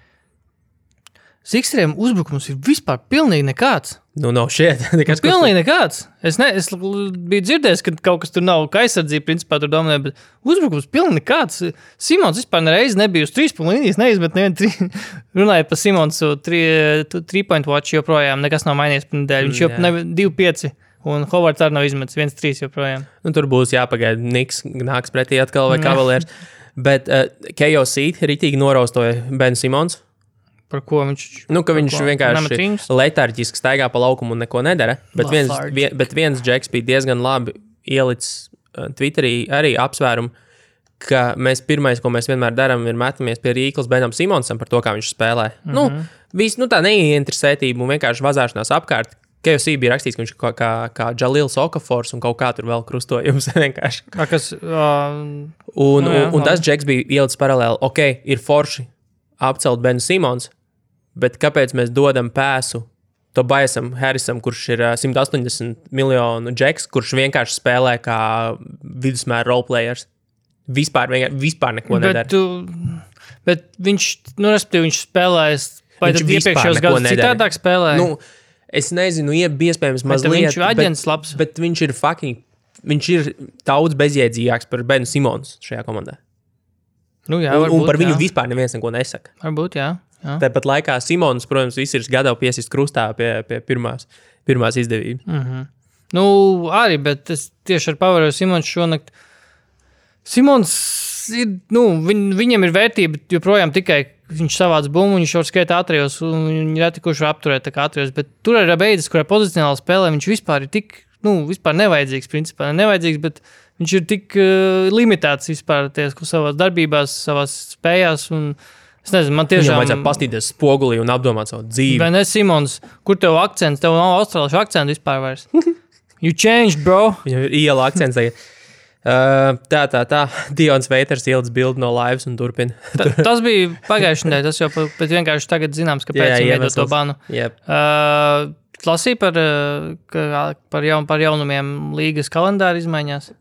Sixeriem uzbrukums ir vispār pilnīgi nekāds. Nu, nav šeit. Pilnīgi nekāds. Es biju dzirdējis, ka kaut kas tur nav, ka aizsardzība principā tur dominē, bet uzbrukums pilnīgi nekāds. Simons vispār nereiz nebija uz 3 punktu līnijas, neizmet nevienu runājot par Simonsu 3-point watch joprojām, nekas nav mainījies par nedēļu. Viņš jau 2-5 un Hovards arī nav izmetis 1-3 joprojām. Nu, tur būs jāpagaida, Niks nāks pretī atkal vai Cavaliers. Bet KOC ritīgi noraustoja Ben Simons. Par ko viņš? Nu, ka viņš vienkārši letarģiski staigā pa laukumu un neko nedara. Bet viens džeks bija diezgan labi ielicis Twitterī arī apsvērumu, ka pirmais, ko mēs vienmēr darām, ir metamies pie Rīklas Benam Simonsam par to, kā viņš spēlē. Tā neinteresētība un vienkārši vazāšanās apkārt. KFC bija rakstīts, ka viņš kā Jalils Okafors un kaut kā tur vēl krustojums vienkārši. Un tas džeks bija ielicis paralēli. Ok, ir forši apcelt Benu Simons, bet kāpēc mēs dodam pēsu Tobiasam Harrisam, kurš ir 180 miljonu džeks, kurš vienkārši spēlē kā vidusmēra roleplayers? Vispār neko nedara. Bet viņš, respektīvi, viņš spēlēs, vai tad iepriekšējos gadus citādāk spēlēja? Nu, es nezinu, iespējams mazliet, viņš ir aģents labs. Bet viņš ir daudz bezjēdzīgāks par Benu Simons šajā komandā. Nu jā, un par viņu vispār neviens neko nesaka. Varbūt, jā. Tāpat laikā Simons, protams, viss ir gatavi piesist krustā pie pirmās izdevības. Nu, arī, bet es tieši ar pavēroju Simons šonakt. Simons ir, viņam ir vērtība joprojām tikai viņš savāds bumbu, viņš var skaitā atrajos, un viņi reti kurš var apturēt tā kā atrajos, bet tur ir beidzis, kurā pozicionāli spēlē, viņš vispār ir tik, vispār nevajadzīgs, principā nevajadzīgs, bet viņš ir tik limitēts vispār savās darbībās, savās spējās, un es nezinu, man tiešām... Viņam vajadzētu pastīties spogulī un apdomāt savu dzīvi. Vai ne, Simons, kur tev akcents? Tev nav austrāliešu akcentu vispār vairs. You changed, bro. Viņam ir iela akcents tagad. Tā. Dions Veiters ielicis bildi no laivas un turpina. Tas bija pagājušajā nedēļā, tas jau bet vienkārši tagad zināms, kāpēc viņi veidot to banu. Yep. Lasīja par jaunumiem līgas kalendāra izmaiņās.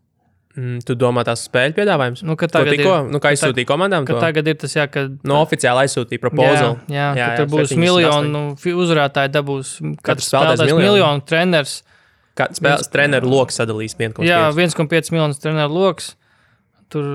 Tu domā tās spēļu piedāvājums? Kā izsūtīja komandām? Ka tagad ir tas, ka... oficiāli aizsūtīja proposal. Jā, ka tur būs miljonu uzvarētāji dabūs. Katrs spēlētājs miljonu treneris. Treneru loks sadalīs 1,5. Jā, 1,5 miljonus treneru loks. Tur,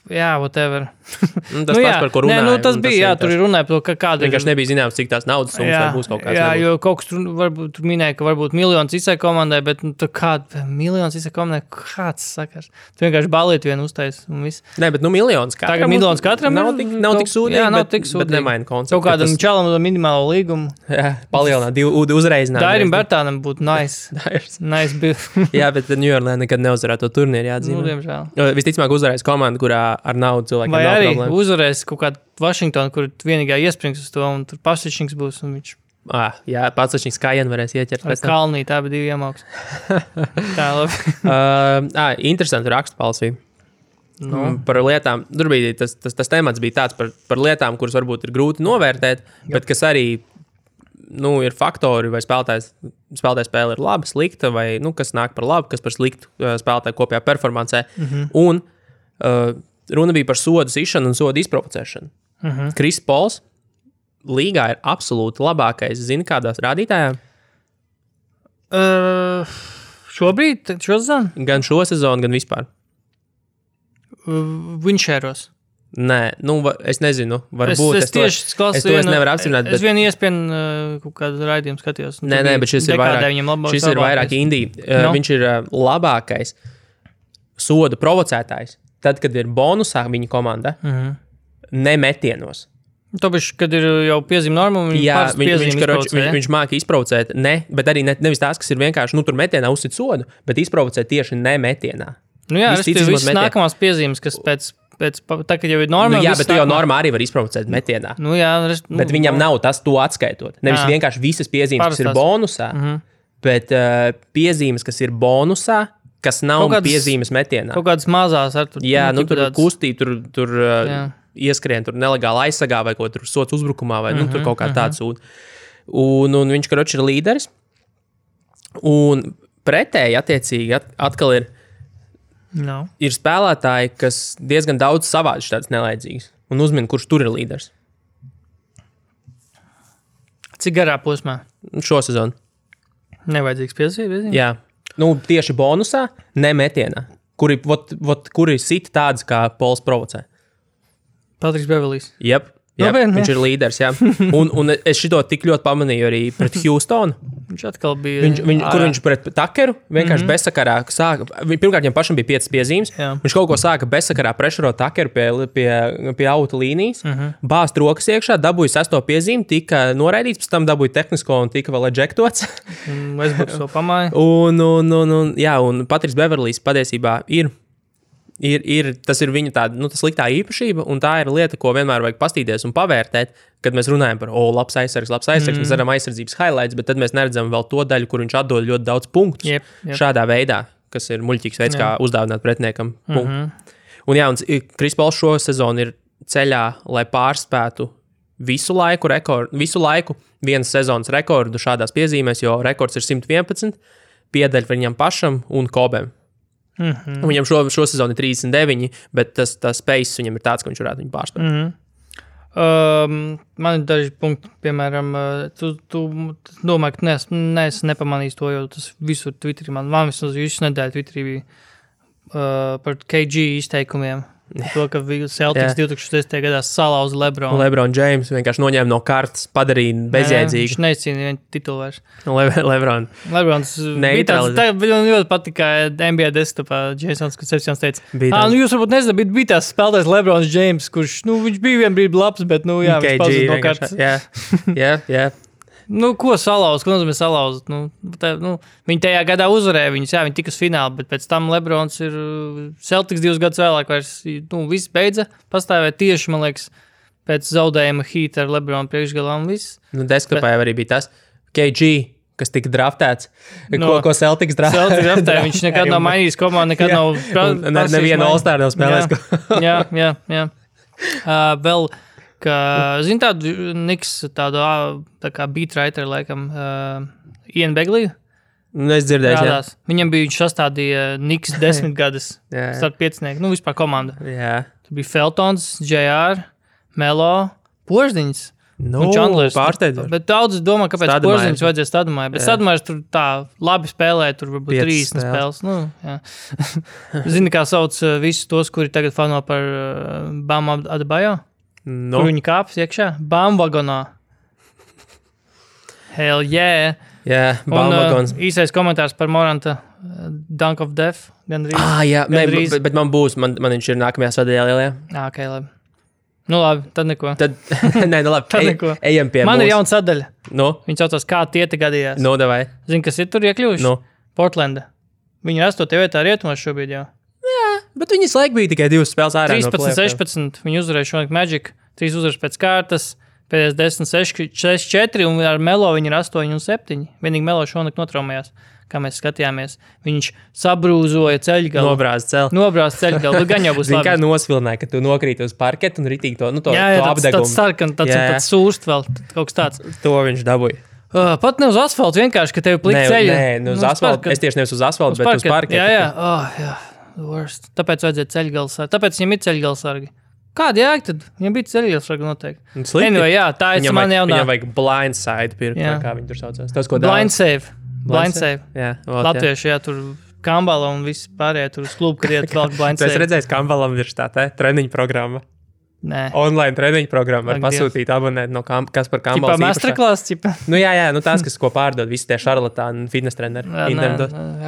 whatever. Tas pats, par ko runāja. Tas bija, tur ir runāja par to, kāda ir. Vienkārši nebija zināms, cik tās naudas summas vai būs kaut kāds. Jā, jo kaut kas tur minēja, ka varbūt miljons izsai komandai, bet kāda miljons izsai komandai, kāds sakars. Tu vienkārši balīt vienu uztais un viss. Nē, bet miljons katram. Tagad miljons katram nav tik sūdīgi, jā, nav tik sūdīgi. Bet nemaina konceptu. Kaut kādam čalam to minimālo līgumu. Jā, palielināt, uzreizināt. Dairim Bertānam būtu nice. Nice bill. Jā, bet New York nekad neuzvarētu to turnīru, jāatzīmē. Diemžēl. Visticamāk uzvarēs komanda, kurā ar naudu cilvēkiem nav problēma. Vai arī uzvarēs kaut kādu Vašingtonu, kur vienīgā iesprings uz to, un tur Pasečņiks būs, un viņš... Jā, Pasečņiks kājienu varēs ieķert. Ar Kalnī, tā bija 2 iemauks. Tā, labi. Interesanti rakstu palsīja. Par lietām, tur bija tas temats bija tāds par lietām, kuras varbūt ir grūti novērtēt, bet kas arī, ir faktori, vai spēlētāja spēle ir laba, slikta, vai, kas nāk par labu, kas par sliktu spēlētāju kopējā performancē. Un runa bija par sodu sišanu un sodu izprovocēšanu. Kris Pols līgā ir absolūti labākais, zini, kādās rādītājā? Šobrīd, šo sezonu? Gan šo sezonu, gan vispār. Winšēros. Nē, es nezinu, varbūt es to nevaru apstiprināt. Es vienu iespēju kaut kādu raidījumu skatījos. Nē, bet šis ir vairāk indī. Viņš ir labākais sodu provocētājs. Tad, kad ir bonusā viņa komanda, nemetienos. Tāpēc, kad ir jau piezīme norma, viņš māca izprovocēt, bet arī nevis tās, kas ir vienkārši, tur metienā uzsit sodu, bet izprovocēt tieši nemetienā. Viss nākamās piezīmes, kas pēc tā, kad jau ir norma. Jā, bet tu jau normā arī var izprovocēt metienā. Bet viņam nav tas to atskaitot. Nevis vienkārši visas piezīmes, kas ir bonusā, bet piezīmes, kas ir bonusā, kas nav piezīmes metienā. Kaut kādas mazās ar tur. Jā, tur kustība, tur ieskrien tur nelegāli aizsargā vai ko tur sots uzbrukumā vai tur kaut kā tāds sūta. Un viņš, karoči, ir līderis. Un pretēji, attiecīgi, atkal ir spēlētāji, kas diezgan daudz savādi tāds nelaidzīgs un uzmin, kurš tur ir līderis. Cik garā posmā? Šo sezonu. Nevajadzīgs piesības? Jā. Tieši bonusā, ne metienā. Kuri sit tāds, kā Pols provocē. Patriks Beverlijs. Jep. Viņš ir līderis, jā. Un es šito tik ļoti pamanīju arī pret Houstonu. Viņš atkal bija... Kur viņš pret Takeru vienkārši bezsakarā sāka... Pirmkārt, viņam pašam bija 5 piezīmes. Jā. Viņš kaut ko sāka bezsakarā prešerot Takeru pie auta līnijas. Bāzt rokas iekšā, dabūja 6. piezīmi, tika noraidīts, pēc tam dabūja tehnisko un tika vēl ejektots. Westbrooks to pamāja. Un Patriks Beverlijs patiesībā tas ir viņa tāda, sliktā īpašība, un tā ir lieta, ko vienmēr vajag pastīties un pavērtēt, kad mēs runājam par, labs aizsargs, mēs redzam aizsardzības highlights, bet tad mēs neredzam vēl to daļu, kur viņš atdod ļoti daudz punktus šādā veidā, kas ir muļķīgs veids, kā uzdāvināt pretiniekam punktu. Un Kris Pols šo sezonu ir ceļā, lai pārspētu visu laiku vienas sezonas rekordu šādās piezīmēs, jo rekords ir 111, piedaļ viņam pašam un Kobem. Viņam šo sezonu ir 39, bet tas pace viņam ir tāds, ka viņš varētu viņu pārspēt. Man ir daži punkti, piemēram, tu domā, ka neesi nepamanījis to, jo tas visur Twitterī, man vismaz visu nedēļu Twitterī bija par KG izteikumiem. To, ka Celtics 2010. gadā salauza Lebronu. Lebron James vienkārši noņēma no kartes, padarīja bezjēdzīgi. Viņš neizcīnīja vienu titulu vairs. Lebrons bija man ļoti patika NBA desktopā Jasons, kad Sepsjons teica, jūs varbūt nezināt, bet bija tās spēlētājs Lebrons James, kurš, viņš bija vien brīdi labs, bet, viņš pazuda no kartes. Jā. Ko salauzt? Ko nozīmē salauzt? Viņi tajā gadā uzvarēja viņus, viņi tika uz finālu, bet pēc tam Lebrons ir Celtics 2 gadus vēlāk vairs, viss beidza pastāvēt tieši, man liekas, pēc zaudējuma Heat ar Lebronu priekšgalā un viss. Desktopā jau arī bija tas KG, kas tika draftēts, ko Celtics draftēja. Viņš nekad nav mainījis komandu, nekad nav nevienu All-Star nav spēlējis. Jā. Vēl zini tādu Niks, tādu tā kā beatwriter, laikam, Ian Begley? Es dzirdēju, jā. Viņam bija, viņš sastādīja Niks 10 gadus starp piecinieku, vispār komandu. Jā. Tur bija Feltons, JR, Melo, Poždiņas. Pārsteidzoši. Bet daudz domā, kāpēc Poždiņas vajadzēja Stadumai. Bet Stadumais tur tā labi spēlēja, tur varbūt 30 spēles. Zini, kā sauc visus tos, kuri tagad fano par Bam Adebayo? Kur viņi kāpjas iekšā? Bamvagonā. Hell yeah. Jā, Bamvagons. Īsais komentārs par Moranta Dunk of Death. Bet man būs, man viņš ir nākamajā sadaļā. Ok, labi. Labi, tad neko. Labi, ejam pie man ir jauna sadaļa. Viņi saucās, kā tieti gadījās. Davai. Zini, kas ir tur iekļuvuši? Portlanda. Viņi ir 8. vietā rietumos šobrīd jau. Bet viņas laik bija tikai 2 spēles ārā. 13-16. Viņi uzvarēja šonakt Magic. 3 uzvaras pēc kārtas. Pēdējais 10-6-4. Un ar Melo viņi ir 8-7. Vienīgi Melo šonakt notraumējās, kā mēs skatījāmies. Viņš sabrūzoja ceļgalu. Nobrāz ceļgalu. Gan jau būs labi. Kā nosvilināja, ka tu nokrīti uz parketu un ritīgi to apdegumu. Tāds sarkan, tāds sūrst vēl. Kaut kas tāds. To viņš dabūja. Pat ne uz asfaltu, vienkārši, ka tev plika ceļa. Nē, uz asfaltu. Es tieši nevis uz asfaltu, bet uz parketu. Jā. Worst. Tāpēc vajadzēja ceļgalsargi. Tāpēc viņam ir ceļgalsargi. Kāda jēga tad? Viņam bija ceļgalsargi noteikti. Anyway, tā ir man jaunā. Viņam vajag blindside pirkt, kā viņi tur saucās. Tas, ko blind save. Jā. Latvieši, tur Kambala un visi pārējie tur uz klubu, kad iet vēl blind save. Tu esi redzējis Kambalam virštātē treniņu programma? Nē. Online treniņu programma var pasūtīt abonēt no Kaspar Kambalas īpašā. Masterclass, tās, kas ko pārdod, visi tie šarlatāni, fitness treneri.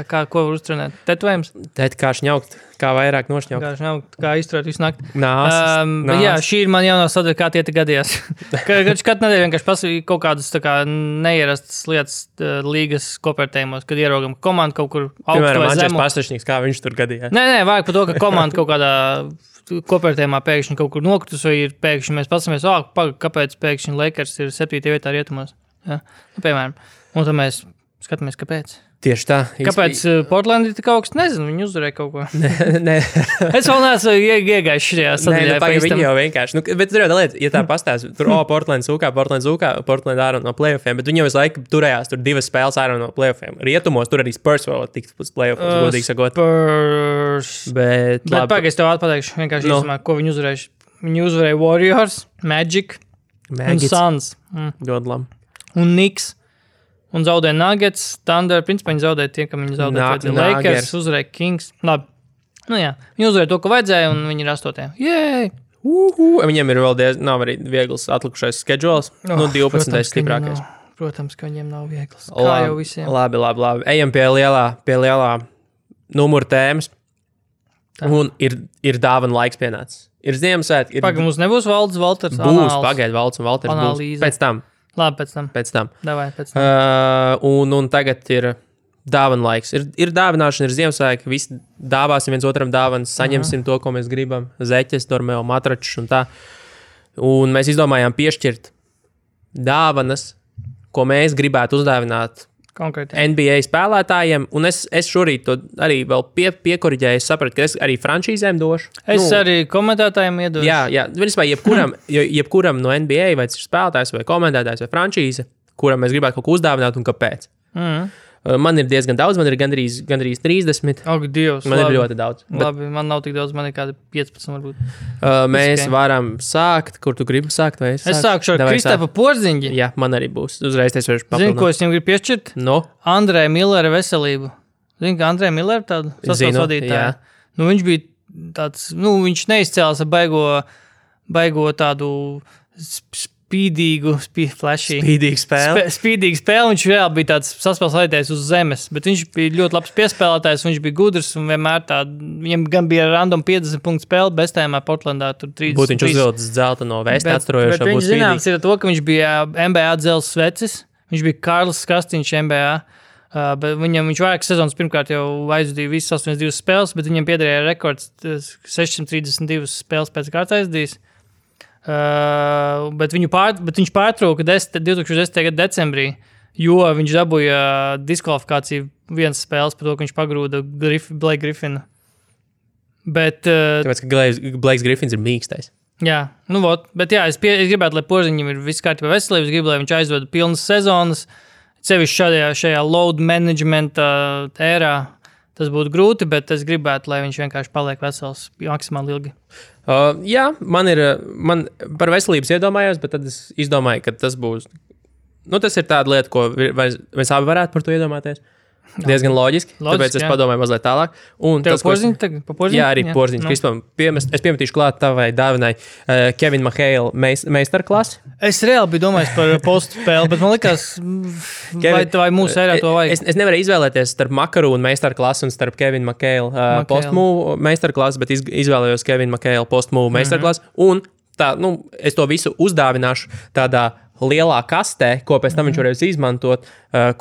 Ko var uztrenēt? Tetovējums? Kā šņaukt, kā vairāk nošņaukt. Kā izturēt visu nakti. Nās. Šī ir man jaunā sadaļa, kā tieti gadījās. Katru nedēļu vienkārši pasūtīju kaut kādas neierastas lietas līgas kopērtējumos, kad ieraugam komandu kaut kur augstu vai zemu. Piemēram, Andžers Pastašņiks, kā viņš tur gadījās. Nē, vajag par to, ka komanda kaut kādā kopērtējumā pēkšņi kaut kur nokritus, vai ir pēkšņi mēs pasamies, kāpēc pēkšņi Lakers ir 7. vietā rietumos. Ja? Piemēram. Un tad mēs skatāmies, kāpēc. Tieši tā. Kāpēc Portlandi tik augsts? Nezinu, viņi uzvarēja kaut ko. Nē. Es vēl neesmu iegājis šajā sadaļā. Viņi jau vienkārši, bet tur jau lieta, ja tā pastāst, tur, Portland zūkā, Portland ārā no playoffiem, bet viņi jau visu laiku turējās, tur 2 spēles ārā no playoffiem. Rietumos tur arī Spurs vēl tikt uz playoffs, godīgi sakot. Spurs. Bet pagaidzi tev atpateikšu, vienkārši īsumā, ko viņi uzvarējuši. Viņi uzvarēja Warriors, Magic un Suns. Ļoti labi. Un Knicks. Un zaudēja Nuggets, Thunder, principā viņi zaudēja tie, kam viņi zaudēja Lakers, uzvarēja Kings. Labi, nu jā, viņi uzvarēja to, ko vajadzēja, un viņi ir 8. Jēj! Viņiem ir vēl nav arī viegls atlikušais schedules, 12. stiprākais. Protams, ka viņiem nav viegls, kā jau visiem. Labi. Ejam pie lielā numura tēmas, un ir dāvana laiks pienācis. Ir Ziemassvētki. Pagaid, mums nebūs Valdes Valters būs, pagaid, Valds un Valters būs. Pēc tam. Labi, pēc tam. Davai, pēc tam. Un tagad ir dāvana laiks. Ir dāvināšana, ir Ziemassvētki, visi dāvāsim viens otram dāvanas, saņemsim to, ko mēs gribam. Zeķes, dormeo, matračus un tā. Un mēs izdomājām piešķirt dāvanas, ko mēs gribētu uzdāvināt konkrēti NBA spēlētājiem. Un es šorīt to arī vēl piekoriģēju. Es sapratu, ka es arī frančīzēm došu. Es arī komentētājiem iedošu. Jā. Vispār jebkuram no NBA, vai tas ir spēlētājs, vai komentētājs, vai frančīze, kuram mēs gribētu kaut ko uzdāvināt un kāpēc. Man ir diezgan daudz, man ir gandrīz 30. Ak, Dievs, man ir ļoti daudz. Labi, man nav tik daudz, man ir kādi 15 varbūt. Mēs varam sākt, kur tu gribi sākt, vai es sāku? Es sākšu ar Kristapu Porziņģi. Jā, man arī būs. Uzreiz es varu papildināt. Zini, ko es viņam gribu piešķirt? No? Andrei Millera veselību. Zini, ka Andrei Millera tādu sastāvs vadītāju. Nu, viņš bija tāds, viņš neizcēlās ar baigo tādu spīdīgu spēli. Spīdīgu spēli. Viņš reāli bija tāds saspēles vadītājs uz zemes, bet viņš bija ļoti labs piespēlētājs, viņš bija gudrs un vienmēr viņam gan bija random 50 punktu spēle, bestējumā Portlandā tur 30. Būtu viņš uzvilcis zelta no vēsti atturojošā. Bet viņš zināms ir to, ka viņš bija NBA dzels svecis, viņš bija Karls Kastiņš NBA, bet viņš vairākas sezonas pirmkārt jau aizdīja visas 82 spēles, bet viņam piederēja rekords 632 spēles pēc kārtas aizdījis. Bet viņš pārtrauka 2010. gada decembrī, jo viņš dabūja diskvalifikāciju vienas spēles par to, ka viņš pagrūda Blake Griffinu. Tāpēc, ka Blakes Griffins ir mīkstais. Jā, bet jā, es gribētu, lai Porziņam ir viss kārtībā veselības, gribu, lai viņš aizvada pilnas sezonas, sevišķi šajā load management ērā. Tas būtu grūti, bet es gribētu, lai viņš vienkārši paliek vesels maksimāli ilgi. Jā, man par veselības iedomājos, bet tad es izdomāju, ka tas būs. Tas ir tāda lieta, ko mēs abi varētu par to iedomāties. Diezgan loģiski, tāpēc es padomāju mazliet tālāk. Tev Porziņš? Jā, arī Porziņš. Es piemetīšu klāt tavai dāvinai Kevin McHale meistarklasi. Es reāli biju domājis par postu spēli, bet man likās, vai mūsu ērā to vajag. Es nevaru izvēlēties starp Makarūnu meistarklasi un starp Kevin McHale postmove meistarklasi, bet izvēlējos Kevin McHale postmove meistarklasi. Un tā, es to visu uzdāvināšu tādā lielā kastē, ko pēc tam viņš varēs izmantot,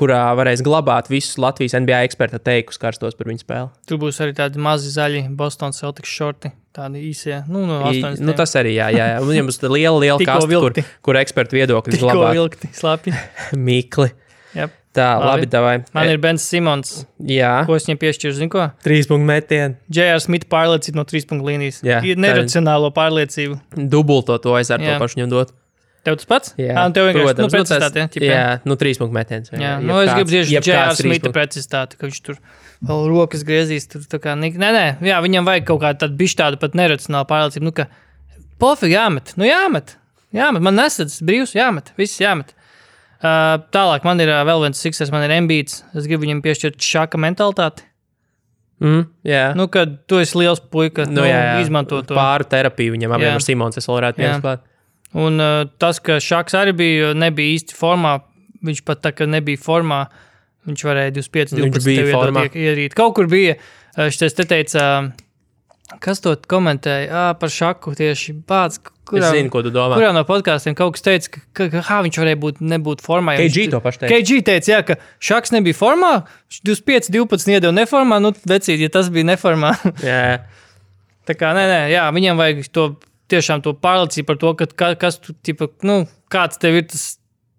kurā varēs glabāt visus Latvijas NBA eksperta teikus karstos par viņu spēli. Tur būs arī tādi mazi zaļi Boston Celtics šorti, tādi īsie, no 80. Tas arī, jā. Viņam būs liela kaste, kur ekspertu viedokļus glabāt. Tikko vilkti, slapi. Mikli. Yep. Tā, labi, davai. Man ir Bens Simons. Jā. Ko es viņam piešķiru, zini ko? 3 punktu metienu. J.R. Smith pārliecība no 3 punktu līnijas. Jā. Neracionālo pārliecību. Dubulto to aiz ar to pašu viņam dot. Tev tas pats? Jā, tev vienkārši precizitāte. Jā, 3 punktu metiens. Jā, es gribu tieši J.R. Smitha precizitāti, ka viņš tur vēl rokas griezīs. Tur tā kā, nē, jā, viņam vajag kaut kādu tādu bišķi tādu pat neracionālu pārliecību. Ka pofīgi jāmet, jāmet. Man nesadz brīvs, jāmet, viss jāmet. Tālāk man ir vēl viens Sixers, man ir Embiids. Es gribu viņam piešķirt šāka mentalitāti. Jā. Kad tu esi liels puika, izmanto to. Pāru terapiju viņam abiem ar Simons, es vēl varētu piesklāt. Un tas, ka Šaks arī nebija īsti formā, viņš pat tā, ka nebija formā, viņš varēja 25-12 tev iedot ierīt. Kaut kur bija, šitais te teica, kas to komentēja, par Šaku tieši pats, es zinu, ko tu domā. Kurā no podkāstiem kaut kas teica, ka viņš varēja nebūt formā. KG to paši teica. KG teica, jā, ka Šaks nebija formā, 25-12 iedeva neformā, vecīt, ja tas bija neformā. Jā. Tā kā, nē, jā, viņam vajag to tiešām to pārliecību par to, ka kas tu, kāds tev ir tas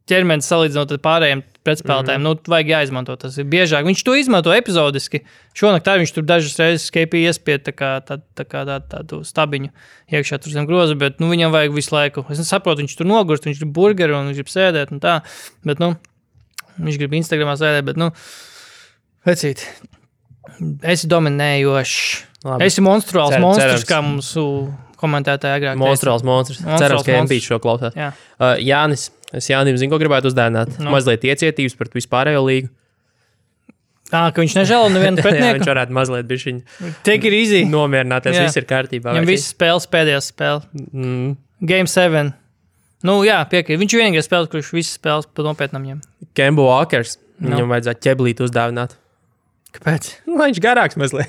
ķermenis salīdzinot ar pārējiem pretspēlētājiem. Vajag jāizmanto tas ir biežāk. Viņš to izmanto epizodiski. Šonakt arī viņš tur dažas reizes KP iespied tādu stabiņu iekšā tur zem groza, bet viņam vajag visu laiku. Es saprotu, viņš tur nogurst, viņš grib burgeri un viņš grib sēdēt un tā, bet viņš grib Instagramā sēdēt, bet vecīt, esi dominējošs. Esi monstruāls monstrs, kā mums komentētāji agrāk. Monstruāls monstrs. Cerams, ka MP šo klausās. Jānis, es Jānim zinu, ko gribētu uzdāvināt. Mazliet iecietības par vispārējo līgu. Ka viņš nežēlo nevienu pretinieku? Viņš varētu mazliet bišķiņ Take it easy. Nomierināties, viss ir kārtībā. Viņam visas spēles pēdējās spēle. Game 7. Piekrīt. Viņš vienīgais spēles, kurš visas spēles pa nopietnam ņem. Kemba Walkers. Viņam vajadzētu ķeblīt uzdāvināt. Kāpēc? Viņš garāks mazliet.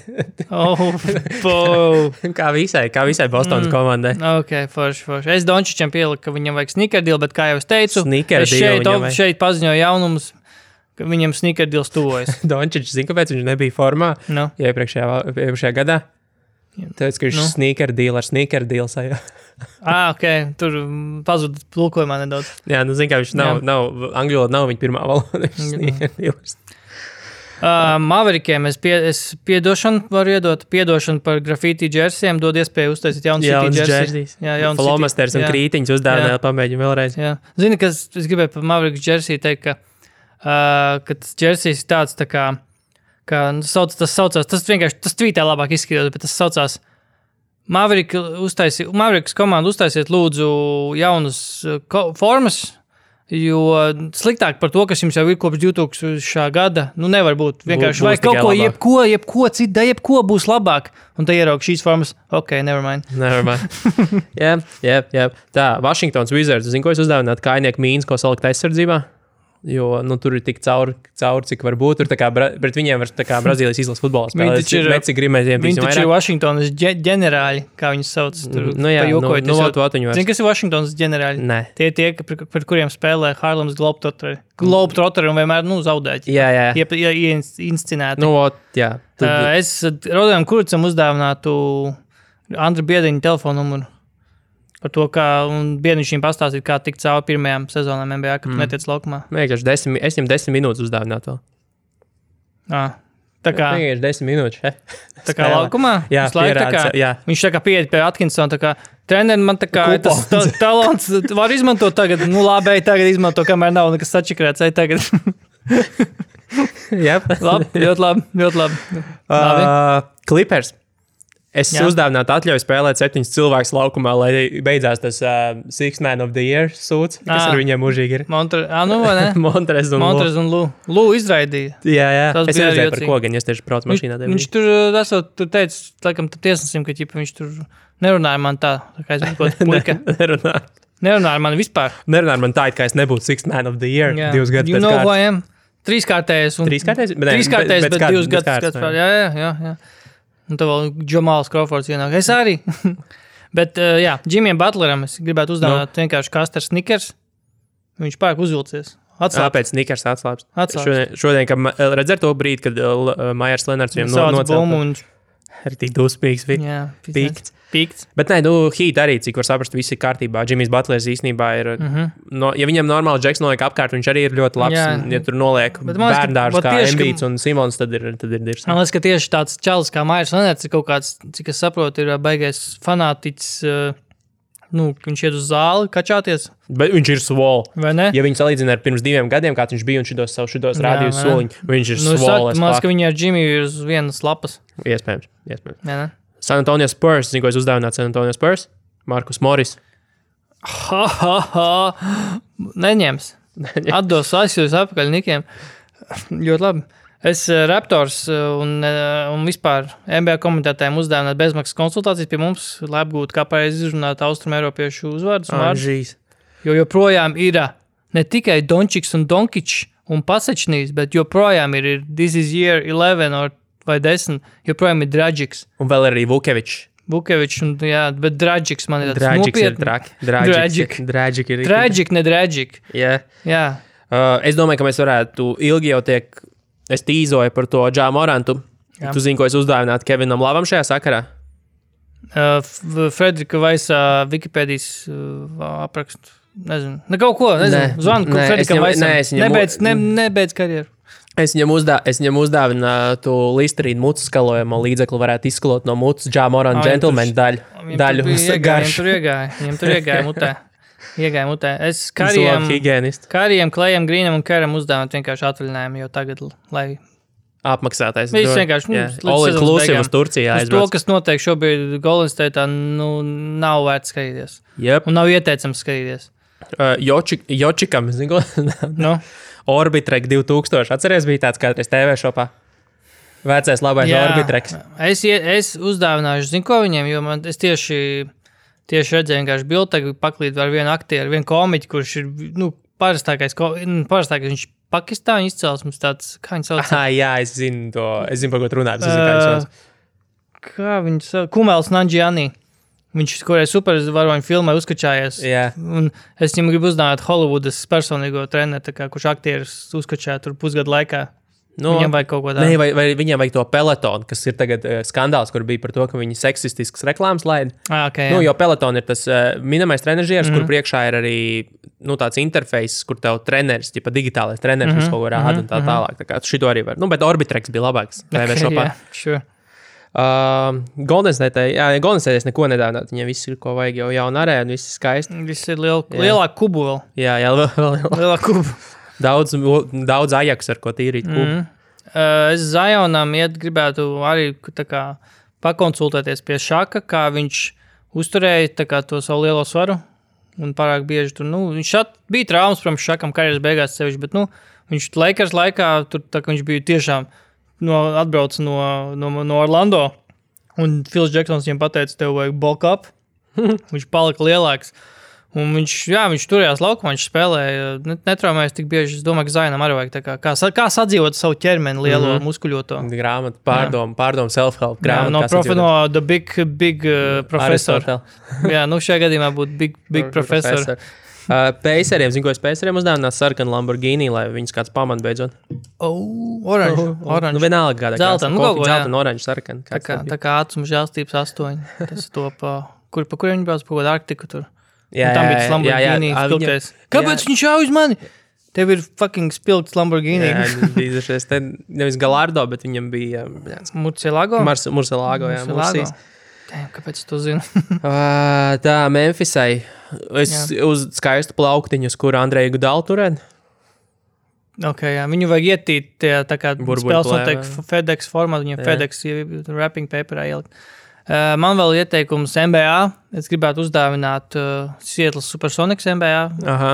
Kā visai Bostonas komandai. Ok, forši. Es Dončičam pieliku, ka viņam vajag sneaker-deal, bet kā jau es teicu, šeit paziņoju jaunumus, ka viņam sneaker-deals tuvojas. Dončičs, zin, kāpēc viņš nebija formā iepriekšējā gadā? Tāpēc, ka viņš sneaker-deal ar sneaker-deal sajā. Ok, tur pazud tulkojumā nedaudz. Jā, zin, kā viņš nav angļu valoda nav viņa pirmā valoda, sneaker-deals. Maverikiem es piedošanu varu iedot, piedošanu par grafīti džersiem, dod iespēju uztaisīt jaunu City džersijas. Flomasters un krītiņus uzdāvināt, pamēģinu vēlreiz. Zini, kas es gribēju par Maveriks džersiju teikt, ka tas džersijas ir tāds tā kā tas saucās, tas vienkārši, tas tvītē labāk izskatījās, bet tas saucās Maveriks komandu uztaisiet lūdzu jaunas formas, jo sliktāk par to, kas jums jau ir kopš 2000. Gada, nevar būt. Vienkārši vai kaut ko, jebko būs labāk. Un te ieraug šīs formas, ok, never mind. Jā. Tā, Washingtons Wizards, zinu, ko es uzdāvinātu kājnieku mīnas, ko salikt aizsardzībā? Jo, tur ir tik cauri, cik var būt. Tur tā kā pret viņiem var tā kā Brazīlijas izlases futbolā spēlēt. Viņi taču ir Washingtonas ģenerāļi, kā viņus sauc. Zini, kas ir Washingtonas ģenerāļi? Nē. Tie, pret kuriem spēlē Harlems Globetrotteri un vienmēr, zaudēķi. Jā. Inscinēti. Jā. Es Rodojam Kuricam uzdāvinātu Andra Biedriņa telefonu numuru. Par to, un Biedriņš viņam pastāstīt, kā tikt cauri pirmajām sezonām NBA, kad tu netiec laukumā. Es viņam 10 minūtes uzdāvinātu vēl. Tā kā... Vienkārši 10 minūtes. Tā kā laukumā? Jā, jā. Viņš tā kā pieiet pie Atkinsona, tā kā treneri man tā kā tas talants var izmantot tagad. Labi, tagad izmanto, kamēr nav nekas sačikrēts. Tagad. Ļoti labi. Clippers. Es uzdāvinātu atļauju spēlēt 7 cilvēkus laukumā, lai beidzās tas Six Man of the Year sūds, kas ar viņiem mūžīgi ir. Montrez un Lū izraidīja. Jā. Es redzēju par ko, gan es tieši braucu mašīnā. Viņš tur teica, laikam, tiesnesim, ka viņš tur nerunāja man tā kā es būtu puika. Nerunāja man vispār. Nerunāja man tā, ka es nebūtu Six Man of the Year 2 gadus pēc kārtas. Trīskārtējs, bet 2 gadus pēc. Jā. Un tev vēl Džamāls Crawfords ienāk. Es arī. Bet, Jimijam Butleram es gribētu uzdāvināt vienkārši Kasters Snickers. Viņš pārāk uzvilcies. Pēc Snickers atslāps. Šodien, kad redzēt to brīdi, kad Majers Lenards viņam nocēlta. Ir tik dusmīgs. Pīkts. Bet Heat arī, cik var saprast, viss ir kārtībā. Jimmys Butlers īstenībā ir, ja viņam normāli Džeks noliek apkārt, viņš arī ir ļoti labs. Ja tur noliek bērndārs kā Embiids un Simons, tad ir dirs. Man liekas, ka tieši tāds čalis kā Majers Lenards ir kaut kāds, cik es saprotu, ir baigais fanātiķis, viņš iet uz zāli kačāties. Bet viņš ir svol. Vai ne? Ja viņi salīdzina ar pirms 2 gadiem, kāds viņš bija un šitos rādījus soliņu, viņš ir svol. Man liekas, ka viņi ar Jimmy ir uz vienas lapas. Iespējams. San Antonio Spurs, zinu, ko es uzdāvinātu San Antonio Spurs? Markus Morris. Neņems. Atdos aizjūs apakaļ Nikiem. Ļoti labi. Es Raptors un vispār NBA komentētājiem uzdāvināt bezmaksas konsultācijas pie mums, lai apgūtu, kā pareizi izrunāt Austrumēropiešu uzvārdus. Jo joprojām ir ne tikai Dončiks un Donkičs un Pasečnīs, bet joprojām ir This is year 11 vai 10, joprojām ir Dragics. Un vēl arī Vukevičs. Bet Dragics man ir tāds nopietni. Dragic ir. Dragic, ne Dragic. Jā. Es domāju, ka mēs varētu ilgi jau es tīzoju par to Džā Morantu. Jā. Tu zini, ko es uzdāvinātu Kevinam Lavam šajā sakarā? Frederika Vaisa Wikipēdijas aprakstu Nezinu. Kaut ko, nezinu. Zvanu Fredikam Vaisam. Nebeidz karjeru. Es viņam uzdāvinu to Listerīnu mucu skalojamo līdzekli, varētu izskalot no mucas Ja Morant Gentleman daļu. Viņam tur iegāja mutē. Es Karijam, Klejam, Grīnam un Keram uzdāvinu vienkārši atvaļinājumu jau tagad, lai apmaksātais. Viņš vienkārši all inclusive uz Turcijā aizbrauc. To, kas notiek šobrīd Golden State'ā, nav vērts skatīties. Yep. Un nav ieteicams skatīties. Jočikam, zinu, no? Orbitrek 2000. Atceries, bija tāds kādreiz TV šopā? Vecais labais Orbitreks. Es uzdāvināšu, zinu, ko viņiem, jo es tieši redzēju vienkārši bildi, paklīt ar vienu aktieru, vienu komiķi, kurš ir, parastākais viņš Pakistāņu izcelsmes tāds, kā viņš sauc? Jā, es zinu to, par ko tu runā, kā viņš sauc. Kā viņš sauc? Kumels Nanjiani. Viņš, kurai supervaroņu filmai uzkačājies. Yeah. Un es viņam gribu uzdāvāt Hollywoodas personīgo treneru, kurš aktieris uzkačāja tur pusgadu laikā. Viņam vajag kaut ko tādu. Vai viņam vajag to pelotonu, kas ir tagad skandāls, kur bija par to, ka viņi seksistiskas reklāmas laida. Okay, jo peloton ir tas minamais trenežieris, kur priekšā ir arī tāds interfejs, kur tev treneris, tipa digitālais treneris, kas kaut ko rāda un tā tālāk. Tā kā šito arī var. Bet Orbitreks bija labāks. Sure. Golden State neko nedāvināt. Viņiem viss ir, ko vajag, jau jauna arēna, viss ir skaisti. Viss ir lielāk kubu vēl. Jā, lielāk kubu. Daudz Ajax, ar ko tīrīt kubu. Es Zionam gribētu arī pakonsultēties pie šaka, kā viņš uzturēja to savu lielo svaru un pārāk bieži tur. Viņš bija traumas, protams, šakam karjeras beigās sevišķi, bet viņš Lakers laikā, tur viņš bija tiešām atbrauc no Orlando, un Phils Jacksons viņam pateica, tev vajag bulk up. Viņš palika lielāks. Un viņš turējās laukumā, viņš spēlēja, netraumējas tik bieži. Es domāju, ka Zainam arī vajag kā sadzīvot savu ķermeni lielo muskuļoto. Grāmatu, pārdomu self-help grāmatu. No The Big Professor. Jā, šajā gadījumā būtu Big Professor. Paceriem, zinu, ko es Paceriem uzdāvināt sarkanu Lamborghini, lai viņus kāds pamat beidzot. Oranž. Vienalga kādā zelta, zelta un oranž sarkana. Tā kā ātrums žēlstības 8. Tas to pa kur viņi brauc pa kaut Arktiku tur. Jā, tam bija tas Lamborghini spilgtais. Kāpēc viņš jau uz mani? Tev ir fucking spilgts Lamborghini. Jā, bija šies te nevis Gallardo, bet viņam bija Murcielago? Murcielago, jā. Murcijas. Kāpēc tu zini? Tā, Memphisai. Uz skaistu plauktiņu, uz kuru Andreju Gudalu turēt. Jā. Viņu vajag ietīt tā kā spēles notiek FedEx formā, viņiem FedEx wrapping paperā ielikt. Man vēl ieteikums NBA. Es gribētu uzdāvināt Seattle Supersonics NBA. Aha.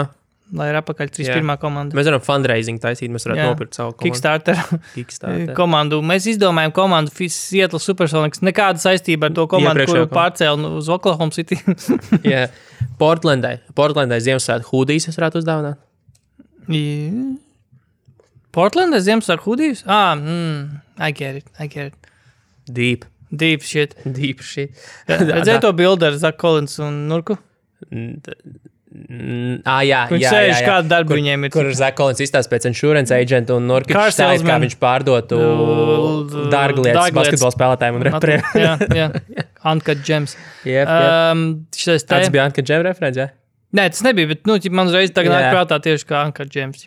Lai ir apakaļ 31. komanda. Mēs varam fundraising taisīt, mēs varētu nopirkt savu komandu. Kickstarter komandu. Mēs izdomājam komandu Seattle Supersonics. Nekāda saistība ar to komandu, kuru pārcēl uz Oklahoma City. Jā. Portlandai Ziemassvētku hūdijas es varētu uzdāvināt. Portlandai Ziemassvētku hūdijas? I get it. Deep shit. Redzēju to bildi ar Zach Collins un Nurku? Jā. Viņš sēž kādu darbu viņiem ir. Kur Zach Collins izstāst pēc insurance agent un Nurkičs stāst, kā viņš pārdotu dārglietas basketbola spēlētājiem un reperiem. Jā. Uncut Gems. Tas bija Uncut Gem referents, jā? Nē, tas nebija, bet man uzreiz tagad nāk prātā tieši kā Uncut Gems.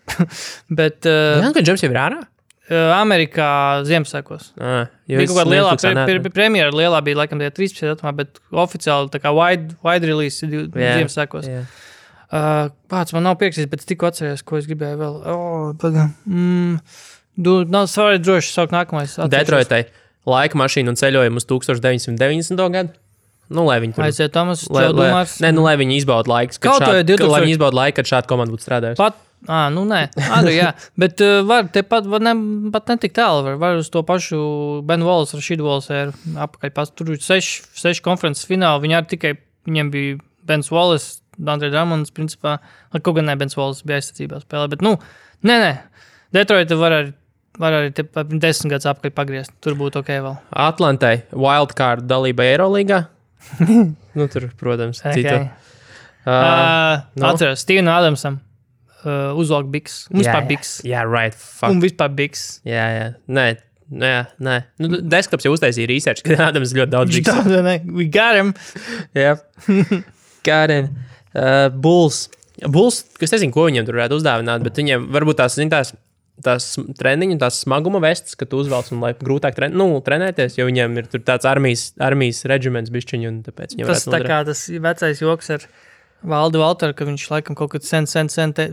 Uncut Gems jau ir ārā? Amerikā Ziemassvētkos. Bija kaut kāda lielā premjera, lielā bija laikam 13. datumā, bet oficiāli tā kā wide release Ziemassvētkos. Pats man nav pieksīs, bet es tikko atceries, ko es gribēju vēl. Svarīgi droši saukt nākamais. Detroitai laika mašīnu un ceļojumu uz 1990. gadu. Lai viņi tur... Aiziet, Tomas, tev domās? Lai viņi izbauda laiks, lai viņi izbauda laiku, kad šāda komanda būtu strādājusi. Nē. Jā. Bet var pat netik tālu. Var uz to pašu Ben Wallace, Rashid Wallace apakaļ. Tur ir 6 konferences fināli. Viņiem bija Bens Wallace, Andre Drummonds, principā. Kaut gan ne Bens Wallace bija aizsacībā spēlē. Bet, nē. Detroit var arī 10 gadus apakaļ pagriezt. Tur būtu ok vēl. Atlantai wildcard dalība Eirolīgā. Tur, protams, citu. Atceros, Steven Adamsam. Uzvalk biks. Un vispār biks. Jā, right. Fuck. Un vispār biks. Jā. Nē. Desktops jau uztaisīja research, ka Adams ļoti daudz biks. We got him. Yep. Got him. Bulls. Bulls, kas nezinu, ko viņiem tur varētu uzdāvināt, bet viņiem varbūt tās treniņu, tās smaguma vestas, ka tu uzvelc un lai grūtāk trenēties, jo viņiem ir tur tāds armijas reģiments bišķiņi, un tāpēc viņiem tas tā kā tas vecais joks ar Valdu Valteru, ka viņš laikam kaut kad sen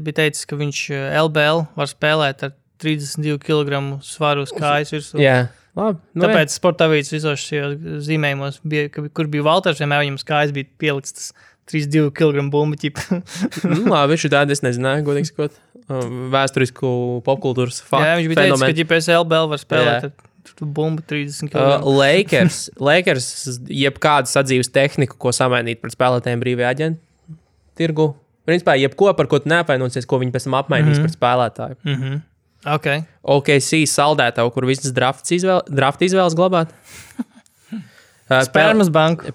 bija teicis, ka viņš LBL var spēlēt ar 32 kg svaru uz kājas virsū. Jā. Labi, tāpēc sporta avīzes visos šajos zīmējumos, kur bija Valters, vienmēr viņam kājas bija pielikts tas 32 kg bumbu ķipa. Labi, viņš tādu es nezināju, godīgi sakot, vēsturisku popkultūras faktu. Jā, viņš bija teicis, ka ģipēs LBL var spēlēt ar bumbu 30 kg. Lakers jebkādu sadzīves tehniku, ko samainīt pret spēlētājiem brīvajā aģentu tirgu. Principā, jebko, par ko tu neapvainosies, ko viņi pēc tam apmainīs pret spēlētāju. OKC saldētavu, kur visas draft izvēles glabāt. Spermas banku.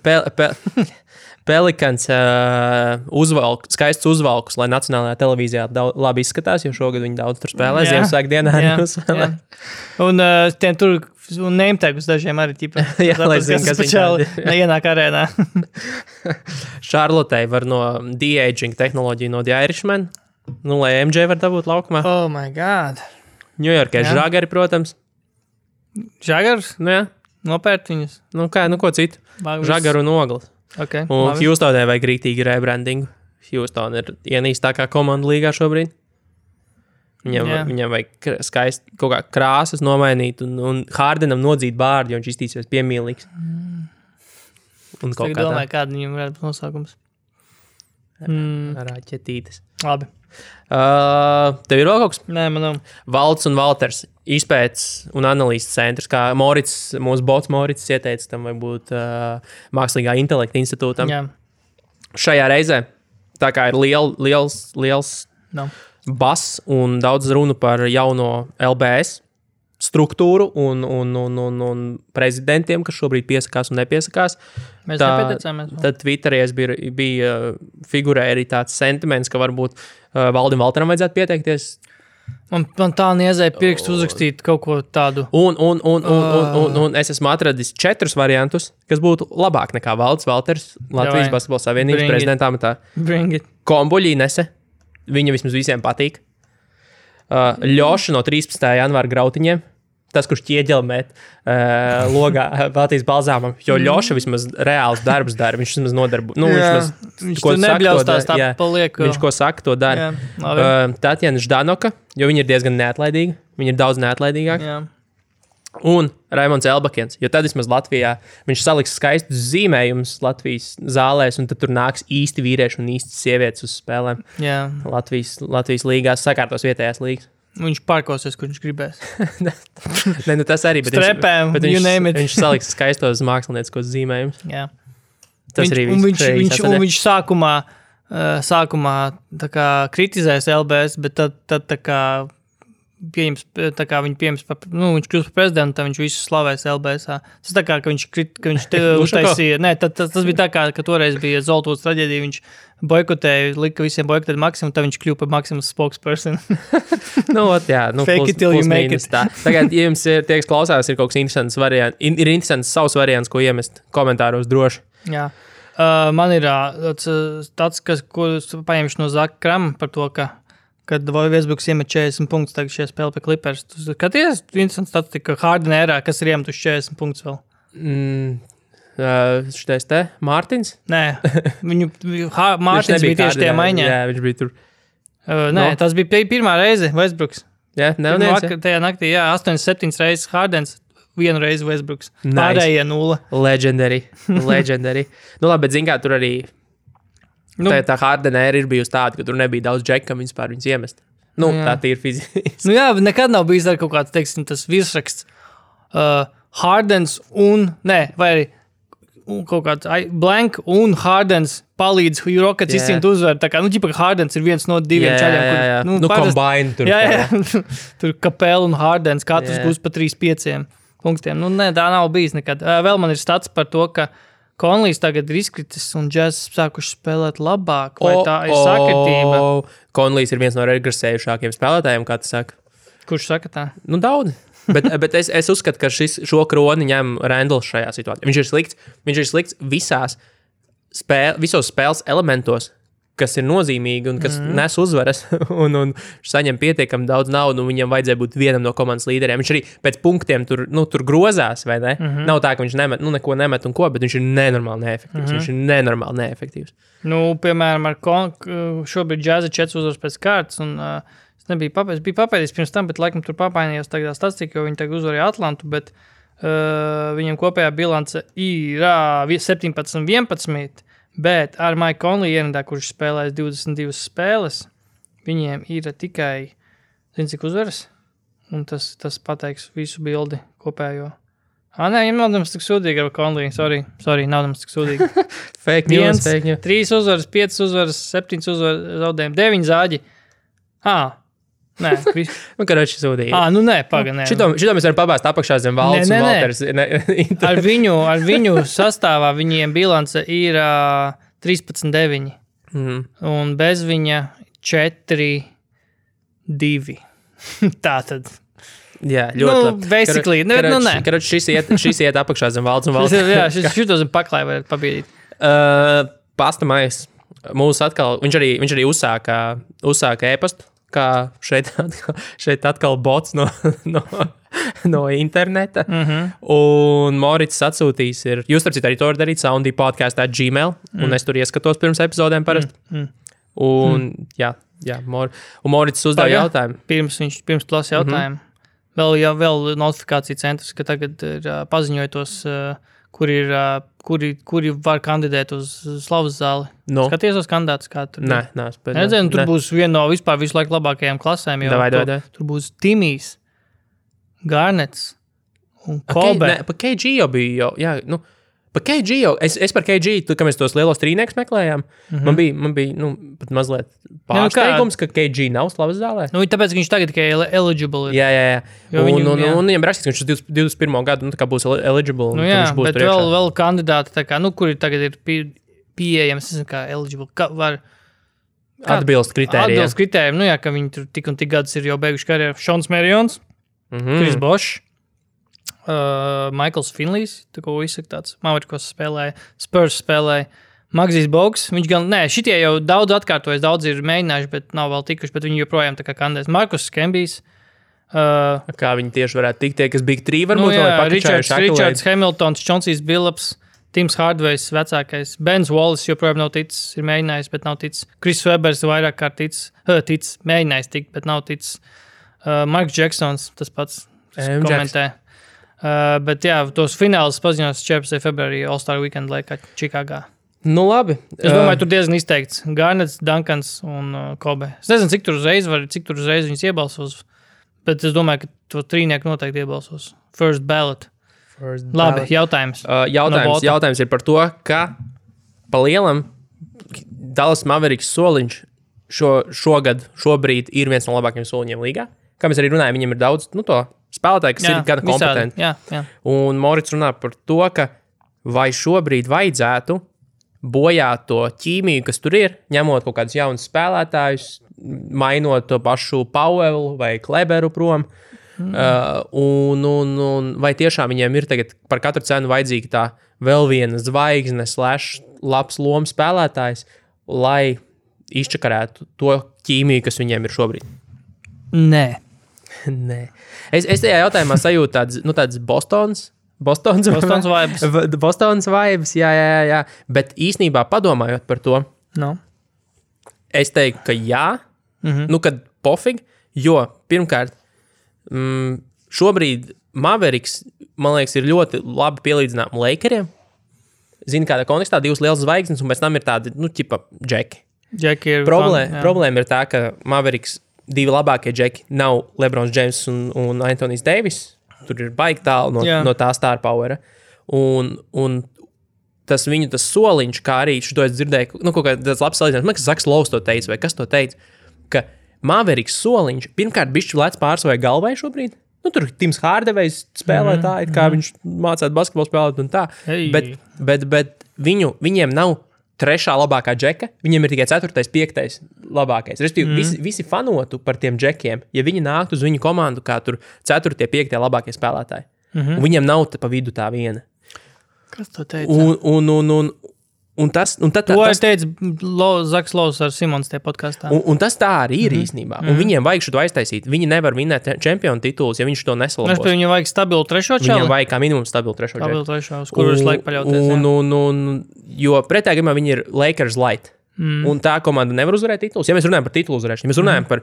Pelikans skaists uzvalkus, lai nacionālajā televīzijā labi izskatās, jo šogad viņi daudz tur spēlē, Ziemassvētku dienā. Un tiem tur name-tagus dažiem arī ķipa. Jā, lai zin, kas viņi neienāk arēnā. Charlotei var no de-aging tehnoloģiju no The Irishman, lai MJ var dabūt laukumā. Oh my God. Ņujorkē žagari, protams. Žagars? Nu jā. Nopērt viņus? Ko citu? Žagaru un ogles. Okay, un Houstonē vajag rītīgi rebrandingu. Houston ir ienīstākā komanda līgā šobrīd. Viņam vajag skaisti kaut kā krāsas nomainīt un Hardenam nodzīt bārdi, jo viņš iztīsies piemīlīgs. Un kaut kā domāju, kāda viņam varētu būt nosaukums. Raķetītes. Labi. Tev ir vēl kaut kas? Nē, man nav. Valds un Valters izpētes un analīzes centrs, kā mūsu bots Morits ieteica tam vai būt mākslīgā intelekta institūtam. Jā. Šajā reizē, tā kā ir liels bass un daudz runu par jauno LBS struktūru un prezidentiem, kas šobrīd piesakās un nepiesakās. Mēs nepieteicāmies. Tad Twitterī bija figurēja arī tāds sentiments, ka varbūt Valdim Valteram vajadzētu pieteikties. Man tā niezēja pirkstu uzrakstīt kaut ko tādu. Un es esmu atradis 4 variantus, kas būtu labāk nekā Valds Valters, Latvijas Basketbola Savienības prezidenta amatā. Kombuļīnese, viņa vismaz visiem patīk. Ļoša no 13. janvāra grautiņiem, tas, kurš ķieģelmēt logā Baltijas balzāmam, jo Ļoša vismaz reāls darbs dara, viņš vismaz nodarbu. Viņš to nebļaustās tā paliek. Viņš, ko saka, to dara. Tatjana Ždanoka, jo viņa ir diezgan neatlaidīga, viņa ir daudz neatlaidīgāka. Jā. Un Raimonds Elbakens, jo tad vismaz Latvijā viņš saliks skaistus zīmējumus Latvijas zālēs, un tad tur nāks īsti vīrieši un īsti sievietes uz spēlēm. Jā. Latvijas līgās, sakārtos vietējās līgas. Viņš parkosies, kur viņš gribēs. Ne, tas arī, bet Strepēm, viņš saliks skaistos mākslinieciskos zīmējumus. Jā. Tas arī viņš sākumā tā kā kritizēs LBS, bet tad tā kā viņš pieņems, viņš kļūst par prezidentu, tad viņš visu slavēs LBS-ā. Tas tā kā, ka viņš te uztaisīja, tas bija tā kā, ka toreiz bija Zoltūras traģēdija, viņš boikotēja, lika visiem boikotēt Maksimu, tad viņš kļūpa par Maksimas spokesperson. Fake it till you make it. Tagad, ja jums tie, kas klausās, ir kaut kas interesants variants, ir interesants savs variants, ko iemest komentāros droši. Jā. Man ir tāds, ko paņemšu no Zaka Krama par to, kad Westbrooks iemet 40 punktus, tagad šie spēle pie Clippers. Tu skaties, interesants statistika, ka Harden ērā, kas ir iemetuši 40 punktus vēl? Šitais te? Mārtiņš? Nē, Mārtiņš bija tieši tajā maiņā. Jā, viņš bija tur. Tas bija pirmā reize Westbrooks. Jā, neviens. Tajā naktī, 8-7 reizes Hardens, 1 reizi Westbrooks. Nice. Pārējie 0. Legendary. Labi, bet zin kā tur arī tā Hardena ir bijusi tāda, ka tur nebija daudz džekam vispār viņus iemest. Tā ir fiziski. Bet nekad nav bijis kaut kāds, teiksim, tas virsraksts Hardens vai arī kaut kāds blank un Hardens palīdz Rockets izcīnīt uzvaru. Tā kā, ķipa, Hardens ir viens no 2 čaļiem. Combine tur. Jā. Tur Capela un Hardens katrs gūs pa 3-5 punktiem. Tā nav bijis nekad. Vēl man ir stats par to, ka Konlijs tagad ir izkritis un Jazz sākuši spēlēt labāk. Vai tā ir sakritība? Konlijs ir viens no regresējušākiem spēlētājiem, kā tu saka. Kurš saka tā? Daudz. Bet es uzskatu, ka šo kroni ņem Randalls šajā situācijā. Viņš ir slikts visos spēles elementos, kas ir nozīmīgi un kas nes uzvaras, un saņem pietiekami daudz naudu, un viņam vajadzēja būt vienam no komandas līderiem. Viņš arī pēc punktiem tur grozās, vai ne? Nav tā, ka viņš nemet, neko nemet un ko, bet viņš ir nenormāli neefektīvs. Viņš ir nenormāli neefektīvs. Piemēram, šobrīd Džaza 4 uzvaras pēc kārtas, un es biju papēdījis pirms tam, bet laikam tur papainījos tagad statistika, jo viņi tagad uzvarēja Atlantu, bet viņam kopējā bilance ir 17-11, bet ar Mike Conley ierindā, kurš spēlēs 22 spēles, viņiem ir tikai, cik uzvaras? Un tas pateiks visu bildi kopējo. Nē, viņam nav nemaz tik sūdīgi ar Conley. Sorry, nav nemaz tik sūdīgi. Fake news. 3 uzvaras, 5 uzvaras, 7 uzvaras, zaudējumi, 9 zāģi. Nē, karoči sūdīgi. Nē, paga. Šito mēs varam pabāzt apakšā zem Valds un Valters. Ar viņu sastāvā viņiem bilance ir 13-9. Un bez viņa 4-2. Tātad. Jā, ļoti labi. Basically. Karoči, šis iet apakšā zem Valds un Valters. Jā, šito zem paklāja varētu pabīdīt. Pastamais. Mūs atkal, viņš arī uzsāka e-pastu. Kā šeit atkal bots no interneta. Un Morits atsūtīs jūs starp citu arī to var darīt soundypodcast@gmail, un es tur ieskatos pirms epizodēm parasti. Un jā, un Morits uzdev jautājumu. Pirms tu lasi jautājumu. Vēl notifikācija centrs, ka tagad ir paziņojotos, kuri var kandidēt uz Slavas zāli. Skaties uz kandidātus, kā tur. Nē, tur būs viena no vispār visu laiku labākajām klasēm, jo tur būs Timijs, Garnets un Kobe. Pa KG jau bija, pa KG jau, es par KG, kad mēs tos lielos trīniekus meklējām, man bija pat mazliet pārsteigums, ka KG nav Slavas zālē. Tāpēc viņš tagad tikai eligible ir. Jā. Un viņam rakstīts, ka viņš 21. gadu tā kā būs eligible. Bet vēl kandidāti, tā kā, kuri tagad ir pieejams, es nezinu, kā eligible, var atbilst kritērijiem. Atbilst kritērijiem, ka viņi tur tik un tik gadus ir jau beiguši karjeru. Šons Merions, Chris Bosh, Michaels Finleys, tā ko izsaka tāds, Mavericks spēlēja, Spurs spēlēja, Magzijs Bogs, viņš gan, šitie jau daudz atkārtojas, daudz ir mēģinājuši, bet nav vēl tikuši, bet viņi joprojām tā kā kandidēs. Markus Skembijs. Kā viņi tieši varētu tikt, tie, kas Big 3 varbūt, vai pakačājuši Richards Hamiltons, Chauncey's Billups, Tims Hardways vecākais, Bens Wallace joprojām nav ticis, ir mēģinājis, bet nav ticis. Chris Webers vairāk kārt ticis, mēģinājis tikt, bet nav ticis. Marks Jacksons, tas pats komentē. Bet jā, tos finālus paziņos 14. februārī All-Star Weekend laikā Čikāgā. Labi. Es domāju, tur diezgan izteikts. Garnets, Duncans un Kobe. Es nezinu, cik tur uzreiz viņus iebalsos, bet es domāju, ka to trīnieku noteikti iebalsos. First ballot. Labi, jautājums. Jautājums ir par to, ka pa lielam Dallas Mavericks soliņš šobrīd ir viens no labākajiem soliņiem līgā. Kā mēs arī runājam, viņam ir daudz, to spēlētāji, kas ir gana kompetenti. Jā. Un Morits runā par to, ka vai šobrīd vajadzētu bojāt to ķīmiju, kas tur ir, ņemot kaut kādus jaunus spēlētājus, mainot to pašu Powellu vai Kleberu prom. Un vai tiešām viņiem ir tagad par katru cenu vajadzīga tā vēl viena zvaigzne / labs lomas spēlētājs, lai izčakarētu to ķīmiju, kas viņiem ir šobrīd? Nē. Es tajā jautājumā sajūtu tāds Bostonas vibes. Bostonas vibes, jā. Bet īsnībā padomājot par to, es teiktu, ka jā, kad pofīgi, jo pirmkārt, šobrīd Mavericks, man liekas, ir ļoti labi pielīdzinām Lakeriem. Zini, kādā kontekstā 2 lielas zvaigznes, un pēc tam ir tādi, džeki. Problēma ir tā, ka Mavericks 2 labākie džeki nav LeBrons James un Anthony's Davis. Tur ir baigi tālu no tā star powera. Un tas viņu soliņš, kā arī šo es dzirdēju, kaut kāds labs salīdzinājums, man liekas, Zaks Lovs to teica, vai kas to teica, ka Mavericks soliņš, pirmkārt, bišķi lēc pār savai galvai šobrīd. Tur Tims Hardawejs spēlē tā, kā viņš mācētu basketbolu spēlēt un tā. Bet viņiem nav 3. labākā džeka, viņiem ir tikai 4., 5. labākais. Respektīvi, visi fanotu par tiem džekiem, ja viņi nāktu uz viņu komandu kā tur 4., 5. labākie spēlētāji. Un viņiem nav pa vidu tā viena. Kas to teica? Un tad to teica Zaks Lovs ar Simons tajā podkastā. Un tas tā arī ir īstenībā. Un viņiem vajag šo aiztaisīt. Viņi nevar vinēt čempionu titulus, ja viņš to nesalabos. Viņam vajag stabilu trešo čali? Viņam vajag kā minimums stabilu trešo čali. Uz kuru viņš laik paļauties. Jo pretējā gadījumā viņi ir Lakers light. Un tā komanda nevar uzvarēt titulus. Ja mēs runājam par titulu uzvarēšanu, ja mēs runājam par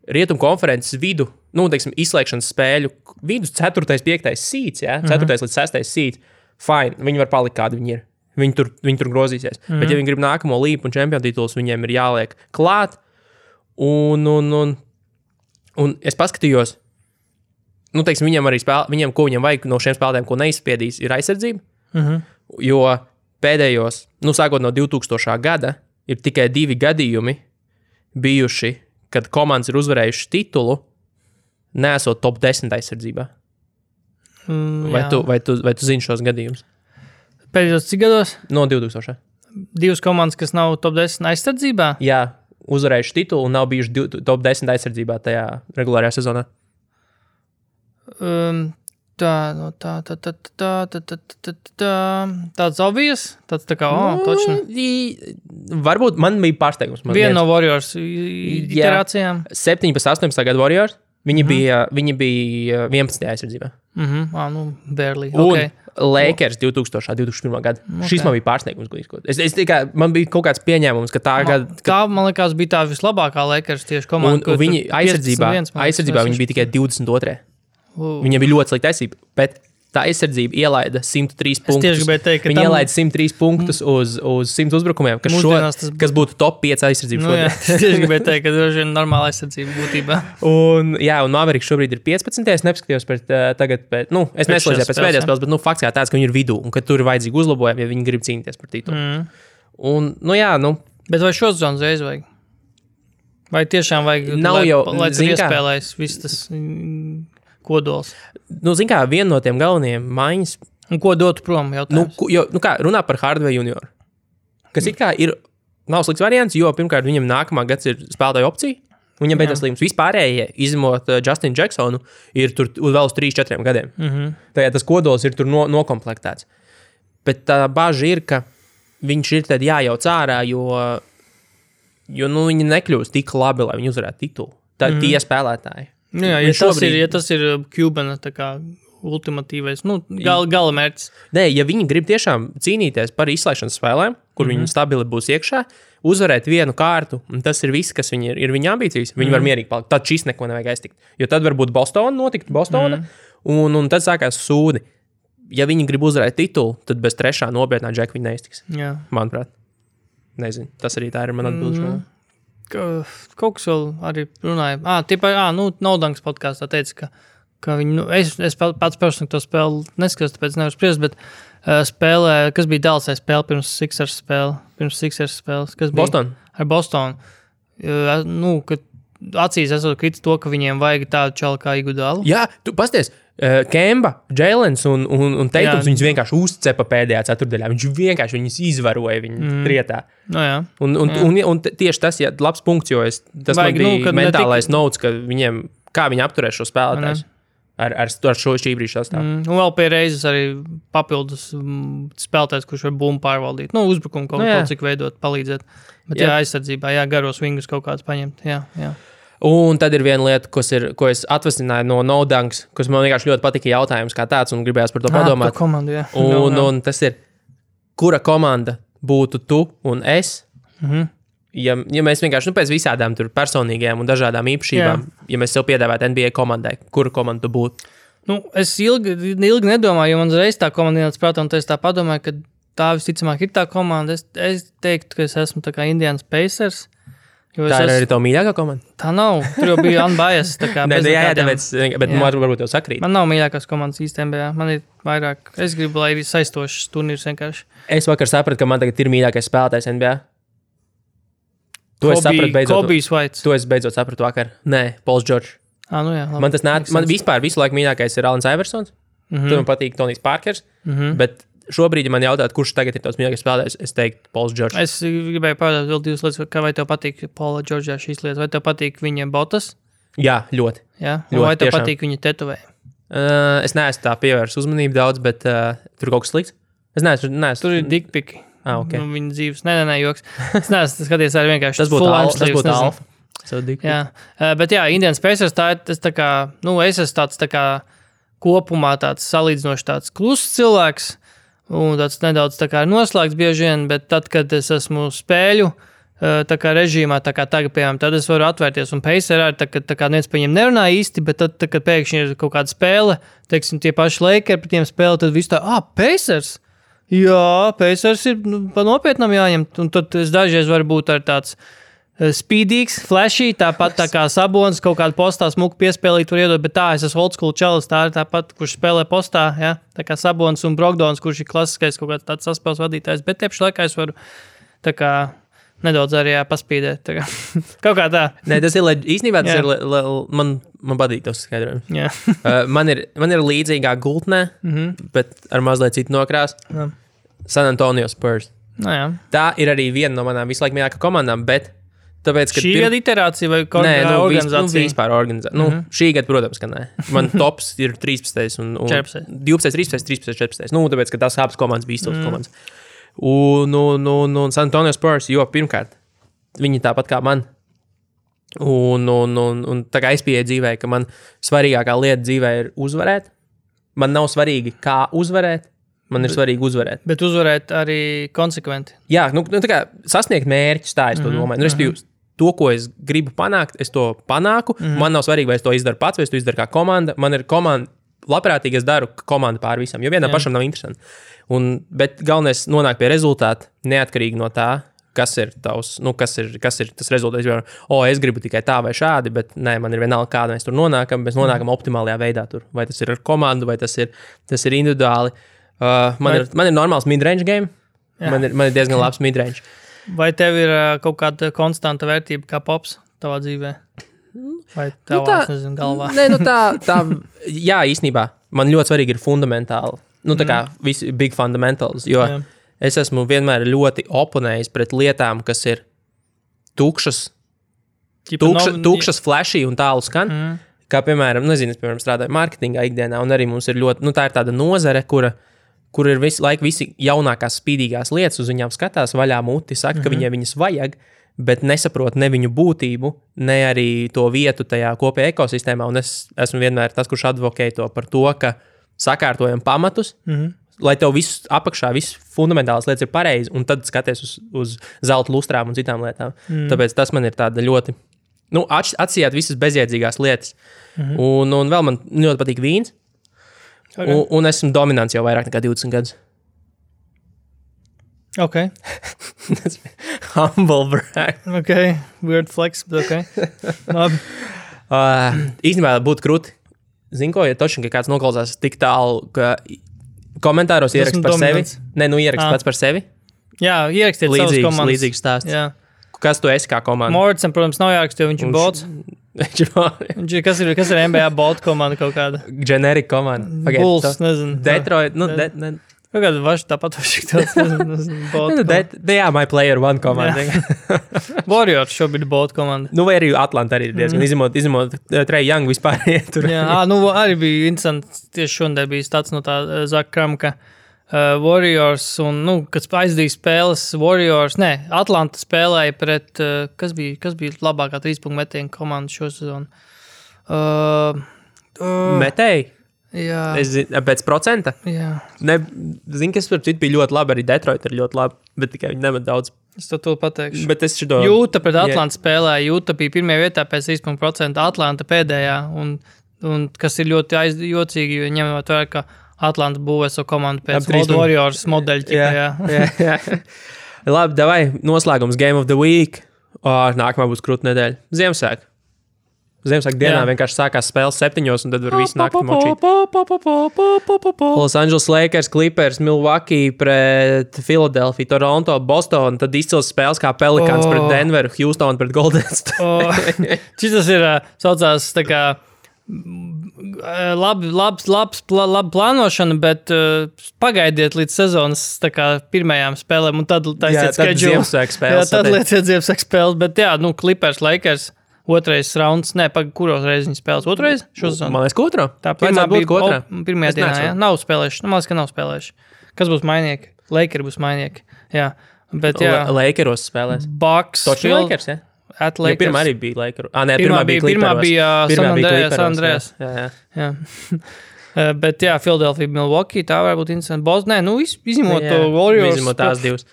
Rietumu konferences vidu, teiksim, izslēgšanas spēļu vidus 4., 5. seeds, 4. līdz 6. seeds, fine, viņi var palikt kādi viņi ir. Viņi tur grozīsies. Bet ja viņi grib nākamo līpu un čempionu titulus, viņiem ir jāliek klāt. Un es paskatījos, teiksim, viņiem arī ko viņam vajag no šiem spēlētājiem, ko neizspiedīs, ir aizsardzība. Jo pēdējos, sākot no 2000. gada, ir tikai 2 gadījumi bijuši, kad komandas ir uzvarējušas titulu, neesot top 10 aizsardzībā. Vai tu zini šos gadījumus? Pēdējos cik gados? No 2000. 2 komandas, kas nav top 10 aizsardzībā? Jā, uzvarējuši titulu un nav bijuši top 10 aizsardzībā tajā regulārajā sezonā. Tāds obvious? Tāds tā kā, točni. Varbūt man bija pārsteigums. Viena no Warriors iterācijām. 17, 18 gadu Warriors. Viņi bija 11. aizsardzībā. Barely. Un Lakers 2001. gadu. Šis man bija pārsteigums. Man bija kaut kāds pieņēmums, ka tā gada... Tā, man liekas, bija tā vislabākā Lakers tieši komanda. Un viņi aizsardzībā viņi bija tikai 22. Viņam bija ļoti slikta aizsardzība, bet tā aizsardzība ielaida 103 punktus. Viņi ielaida 103 punktus uz 100 uzbrukumiem, kas būtu top 5 aizsardzības šodien. Es tieši gribēju teikt, ka droši vien normāla aizsardzība būtībā. Un Mavericks šobrīd ir 15. Es nepaskatījos tagad, es neslēdzu pēc pēdējās spēles, bet fakts jā tāds, ka viņi ir vidū un ka tur ir vajadzīgi uzlabojumi, ja viņi grib cīnīties par titulu. Un, Bet vai šo sezonu reiz vajag? Vai tiešām vajag, lai tur iespēlēs viss tas... kodols. Zin kā, viena no tiem galvenajiem maiņas... Un ko dotu prom jautājums? Runā par Hardaway junioru. Kas it kā nav slikts variants, jo pirmkārt viņam nākamā gads ir spēlētāja opcija. Viņam beidzas līgums. Vispārējie, izņemot Justinu Jacksonu, ir tur vēl uz 3-4 gadiem. Tajā tas kodols ir tur nokomplektēts. Bet tā baža ir, ka viņš ir tad jājauc ārā, jo viņi nekļūst tik labi, lai viņi uzvarētu titulu. Tā ir tie spēlētāji. Ja tas ir Cubana tā kā ultimatīvais, gala mērķis. Nē, ja viņi grib tiešām cīnīties par izslēgšanas spēlēm, kur viņi stabili būs iekšā, uzvarēt vienu kārtu, un tas ir viss, kas viņi ir viņa ambīcijas, viņi var mierīgi palikt. Tad šis neko nevajag aiztikt. Jo tad varbūt Bostona, un tad sākās sūdi. Ja viņi grib uzvarēt titulu, tad bez 3. nopietnā džeka viņi neiztiks. Jā. Manuprāt. Nezinu, tas arī tā ir man atbildi. Kaut kas vēl arī runāja. Naudanks podkāstā teica, ka viņi, es pats personīgi to spēli neskatos, tāpēc nevaru spriest, bet spēlē, kas bija Dallasai spēle pirms Sixers spēles? Kas bija? Boston. Ar Bostonu. Kad acīs esot kritis to, ka viņiem vajag tādu čalu kā Iguodala. Jā, tu pasties. Kemba, Jēlens un Teitums viņus vienkārši uzcepa pēdējā ceturdaļā. Viņš vienkārši viņus izvaroja viņu trietā. Un tieši tas ir labs punkts, jo tas man bija mentālais notes, ka kā viņi apturēs šo spēlētājs ar šī brīža sastāvu. Un vēl pie reizes arī papildus spēlētājs, kurš var bumbu pārvaldīt. Uzbrukumu kaut cik veidot, palīdzēt. Bet aizsardzībā, garos vingus kaut kāds paņemt. Jā. Un tad ir viena lieta, ko es atvasināju no Naudanks, kas man vienkārši ļoti patika jautājums kā tāds, un gribējās par to padomāt. Komandu, jā. Un tas ir, kura komanda būtu tu un es? Ja mēs vienkārši pēc visādām tur personīgajām un dažādām īpašībām, ja mēs sev piedāvātu NBA komandai, kura komanda tu būtu? Es ilgi nedomāju, jo man reiz tā komanda ienāca prātā, un es tā padomāju, ka tā visticamāk ir tā komanda. Es teiktu, ka es esmu tā kā Indiana Pacers. Tā ir arī tā mīļākā komanda? Tā nav. Tur jau bija unbiased. Bet varbūt tev sakrīt. Man nav mīļākās komandas īstenībā. Man ir vairāk. Es gribu, lai ir saistošs turnīrs vienkārši. Es vakar sapratu, ka man tagad ir mīļākais spēlētājs NBA. To es sapratu beidzot. Kobijs Vaits. To es beidzot sapratu vakar. Nē, Pauls Džordžs. Man vispār visu laiku mīļākais ir Alans Iversons. Tur man patīk Tonijs Parkers. Bet šobrīd, ja man jautāt, kurš tagad ir tavs mīļākais spēlētājs, es teiktu Pauls Džordžs. Es gribēju pajautāt vēl 2 lietas, vai tev patīk Paula Džordžā šīs lietas, vai tev patīk viņa botas? Jā, ļoti. Jā? Vai tev patīk viņa tetovējumi? Es neesmu tā pievērst uzmanību daudz, bet tur kaut kas slikts. Es neesmu. Tur ir dickpiki. Okay. Viņa dzīves. Nē, joks. Es neesmu skaties arī vienkārši. Tas būtu alfa. Jā. Bet jā, Indians Pacers tā ir tas tā kā, es esmu tāds tā kā kopumā tāds salīdzinoši tāds kluss cilvēks un tāds nedaudz tā kā noslēgts bieži vien, bet tad, kad es esmu spēļu tā kā režīmā, tā kā tagad, piemēram, tad es varu atvērties un Pacers arī, tā kā neviens par viņiem nerunā īsti, bet tad, kad pēkšņi ir kaut kāda spēle, teiksim, tie paši Lakers par tiem spēle, tad viss tā, Pacers? Jā, Pacers ir pa nopietnam jāņem, un tad es dažreiz varu būt ar tāds speedīgs, flashy, tāpat tā kā Sabonis kaut kādu postā smuku piespēlīt var iedot, bet es esmu old school čalis, tā ir tāpat, kurš spēlē postā, ja? Tā kā Sabonis un Brogdons, kurš ir klasiskais kaut kāds tāds saspēles vadītājs, bet tiepši laikā es varu tā kā nedaudz arī paspīdēt. Tā kā. Kaut kā tā. Nē, tas ir īstenībā, tas ir, man patīk tas skaidrojums. Man ir līdzīgā gultnē, bet ar mazliet citu nokrāsu. San Antonio Spurs. Tā ir arī viena no manām visu laiku mīļākajām komandām, bet tāpēc, ka šī gada iterācija vai organizācija? Vispār organizācija. Šī gada, protams, ka nē. Man tops ir 13 un 12, 13, 14. Tāpēc, ka tās abas komandas bija izcils komandas. Un San Antonio Spurs, jo pirmkārt, viņi tāpat kā man. Un tā kā es pieeju dzīvē, ka man svarīgākā lieta dzīvē ir uzvarēt. Man nav svarīgi, kā uzvarēt. Man ir svarīgi uzvarēt. Bet uzvarēt arī konsekventi. Jā, tā kā sasniegt mērķus, tā es to domāju. Respektīvi, to, ko es gribu panākt, es to panāku. Man nav svarīgi, vai es to izdaru pats, vai es to izdaru kā komanda. Man ir komanda, labprātīgi es daru komandu pār visam, jo vienam pašam nav interesanti. Bet galvenais nonāk pie rezultāta, neatkarīgi no tā, kas ir tavs, kas ir tas rezultāts. Es gribu tikai tā vai šādi, bet nē, man ir vienalga, kāda mēs tur nonākam. Mēs nonākam optimālajā veidā tur. Vai tas ir ar komandu, vai tas ir individuāli. Man ir normāls midrange game. Man ir diezgan labs midrange. Vai tev ir kaut kāda konstanta vērtība kā pops tavā dzīvē? Vai tavā, nezinu, galvā? Nē, tā, jā, īstenībā. Man ļoti svarīgi ir fundamentāli. Tā kā visi big fundamentals, jo es esmu vienmēr ļoti oponējis pret lietām, kas ir tukšas, flashy un tālu skan. Kā, piemēram, es strādāju mārketingā ikdienā, un arī mums ir ļoti, tā ir tāda nozare, kur ir visu laiku visi jaunākās spīdīgās lietas, uz viņām skatās vaļā muti, saka, ka viņas vajag, bet nesaprot ne viņu būtību, ne arī to vietu tajā kopējā ekosistēmā, un es esmu vienmēr tas, kurš advokē to par to, ka sakārtojam pamatus, lai tev viss apakšā, viss fundamentālas lietas ir pareizi, un tad skaties uz zelta lustrām un citām lietām. Tāpēc tas man ir tāda ļoti, atsijāt visas bezjēdzīgās lietas. Un vēl man ļoti patīk vīns, un esmu dominants jau vairāk nekā 20 gadus. Ok. Humble brag. Ok, weird flex, bet ok. Labi. Īstenībā būtu krūti. Zinu, ko, ja točni, ka kāds noklausās tik tālu, ka komentāros ierakst par sevi. Nē, ierakst pats par sevi. Jā, ierakstiet savus komandas. Līdzīgs stāsts. Jā. Kas tu esi kā komanda? Morrisam, protams, nav jārakst, jo viņš ir bots. Kas ir NBA bot komanda kaut kāda? Generic komanda. Bulls, nezinu. Detroit, Kaut kāda vaši tāpat vaši tāds, bot. Jā, my player one komanda. Warriors šobrīd bot komanda. Vai arī Atlanta arī ir diezgan izņemot Trae Young vispār ietur. Jā, arī bija interesanti, tieši šodien bija stāsts no tā Zaka Kramka Warriors un, kad aizdīja spēles Warriors, Atlanta spēlēja pret, kas bija labākā 3-punktu metienu komanda šo sezonu? Metēji? Jā. Es zinu, pēc procenta? Jā. Zinu, kas par citu bija ļoti labi, arī Detroit ir ļoti labi, bet tikai viņi nemet daudz. Es to pateikšu. Bet es šito... Jūta pret Atlanta spēlēja, Jūta bija pirmajā vietā pēc 3%, Atlanta pēdējā, un kas ir ļoti jocīgi, jo ņemot vērā, ka Atlanta būvē savu komandu pēc Warriors modeļa. Jā. Labi, davai, noslēgums Game of the Week. Nākamā būs krūta nedēļa. Ziemassvētku dienā vienkārši sākās spēles 7, un tad var visu nakti močīt. Los Angeles Lakers, Clippers, Milwaukee pret Philadelphia, Toronto, Boston, tad izcils spēles kā Pelicans pret Denveru, Houston pret Golden State. Šitas ir saucās tā kā labi plānošana, bet pagaidiet līdz sezonas tā kā pirmajām spēlēm, un tad taisiet schedule. Tad lieciet Ziemassvētku spēles, bet Clippers, Lakers. Otrais rauns, kuros reizes viņi spēlēs? Otrais? Man liekas, otro. Tā pirmā bija otrā. Pirmajā dienā, jā. Nav spēlējuši. Man liekas, ka nav spēlējuši. Kas būs mainieki? Lakers būs mainieki. Jā, bet jā. Lakeros spēlēs. Bucks. Toči Lakers, ja? Lakers. Pirmā arī bija Lakers. Pirmā bija San Andreas. Jā. Bet jā, Philadelphia, Milwaukee, tā varētu būt interesanti. Bostonā, izņemot to Warriors. Izņemot tās divas.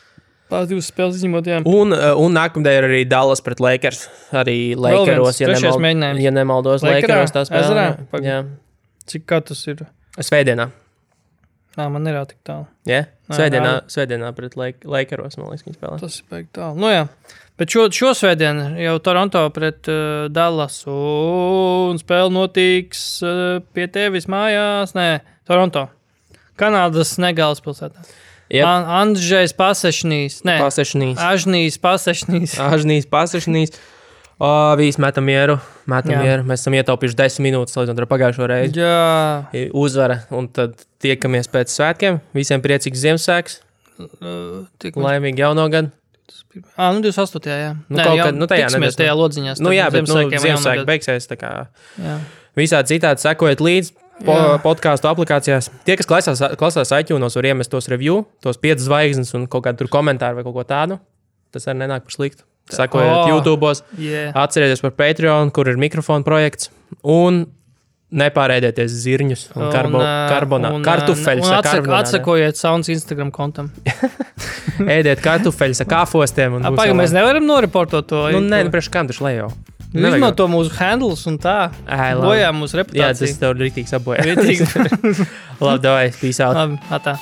Tās divas spēles izņemot, jā. Un nākamdien ir arī Dallas pret Lakers. Arī Lakeros, ja nemaldos, Lakeros tā spēlē. Jā. Cik kā tas ir? Svētdienā. Man ir tik tālu. Jā? Svētdienā pret Lakeros, man liekas, viņi spēlē. Tas ir baigi tālu. Nu jā. Bet šo svētdienu jau Toronto pret Dallas un spēle notiks pie tevis mājās. Nē, Toronto. Kanādas negālas pilsētā. Yep. Andžejs Pasešnīs. Nē, Ažnīs Pasešnīs. Visi metam mieru. Mēs esam ietaupījuši 10 minūtes, līdz ar pagājušo reizi. Jā. Uzvara. Un tad tiekamies pēc svētkiem. Visiem priecīgs Ziemassvētks. Laimīgi jauno gadu. 28. jā. Tiksimies tajā lodziņā. Jā, bet Ziemassvētki beigsies. Tā kā visādi citādi sekojiet līdzi. Podcastu aplikācijās. Tie, kas klausās iTunes, var iemest tos review, tos 5 zvaigznes un kaut kādu tur komentāru vai kaut ko tādu. Tas arī nenāk par sliktu. Sekojiet YouTube'os. Atcerieties par Patreon, kur ir mikrofona projekts. Un nepārēdieties zirņus un kartufelļus. Atsakojiet Sounds Instagram kontam. Ēdiet kartufelļus ar kāfostiem. Mēs nevaram noreportot to. Nē, priekš kam taču lejo. Izmanto mūsu handles un tā. Bojā mūsu reputāciju. Jā, tas tev rītīgs apbojā. Labi, davai, peace out. Labi, atā.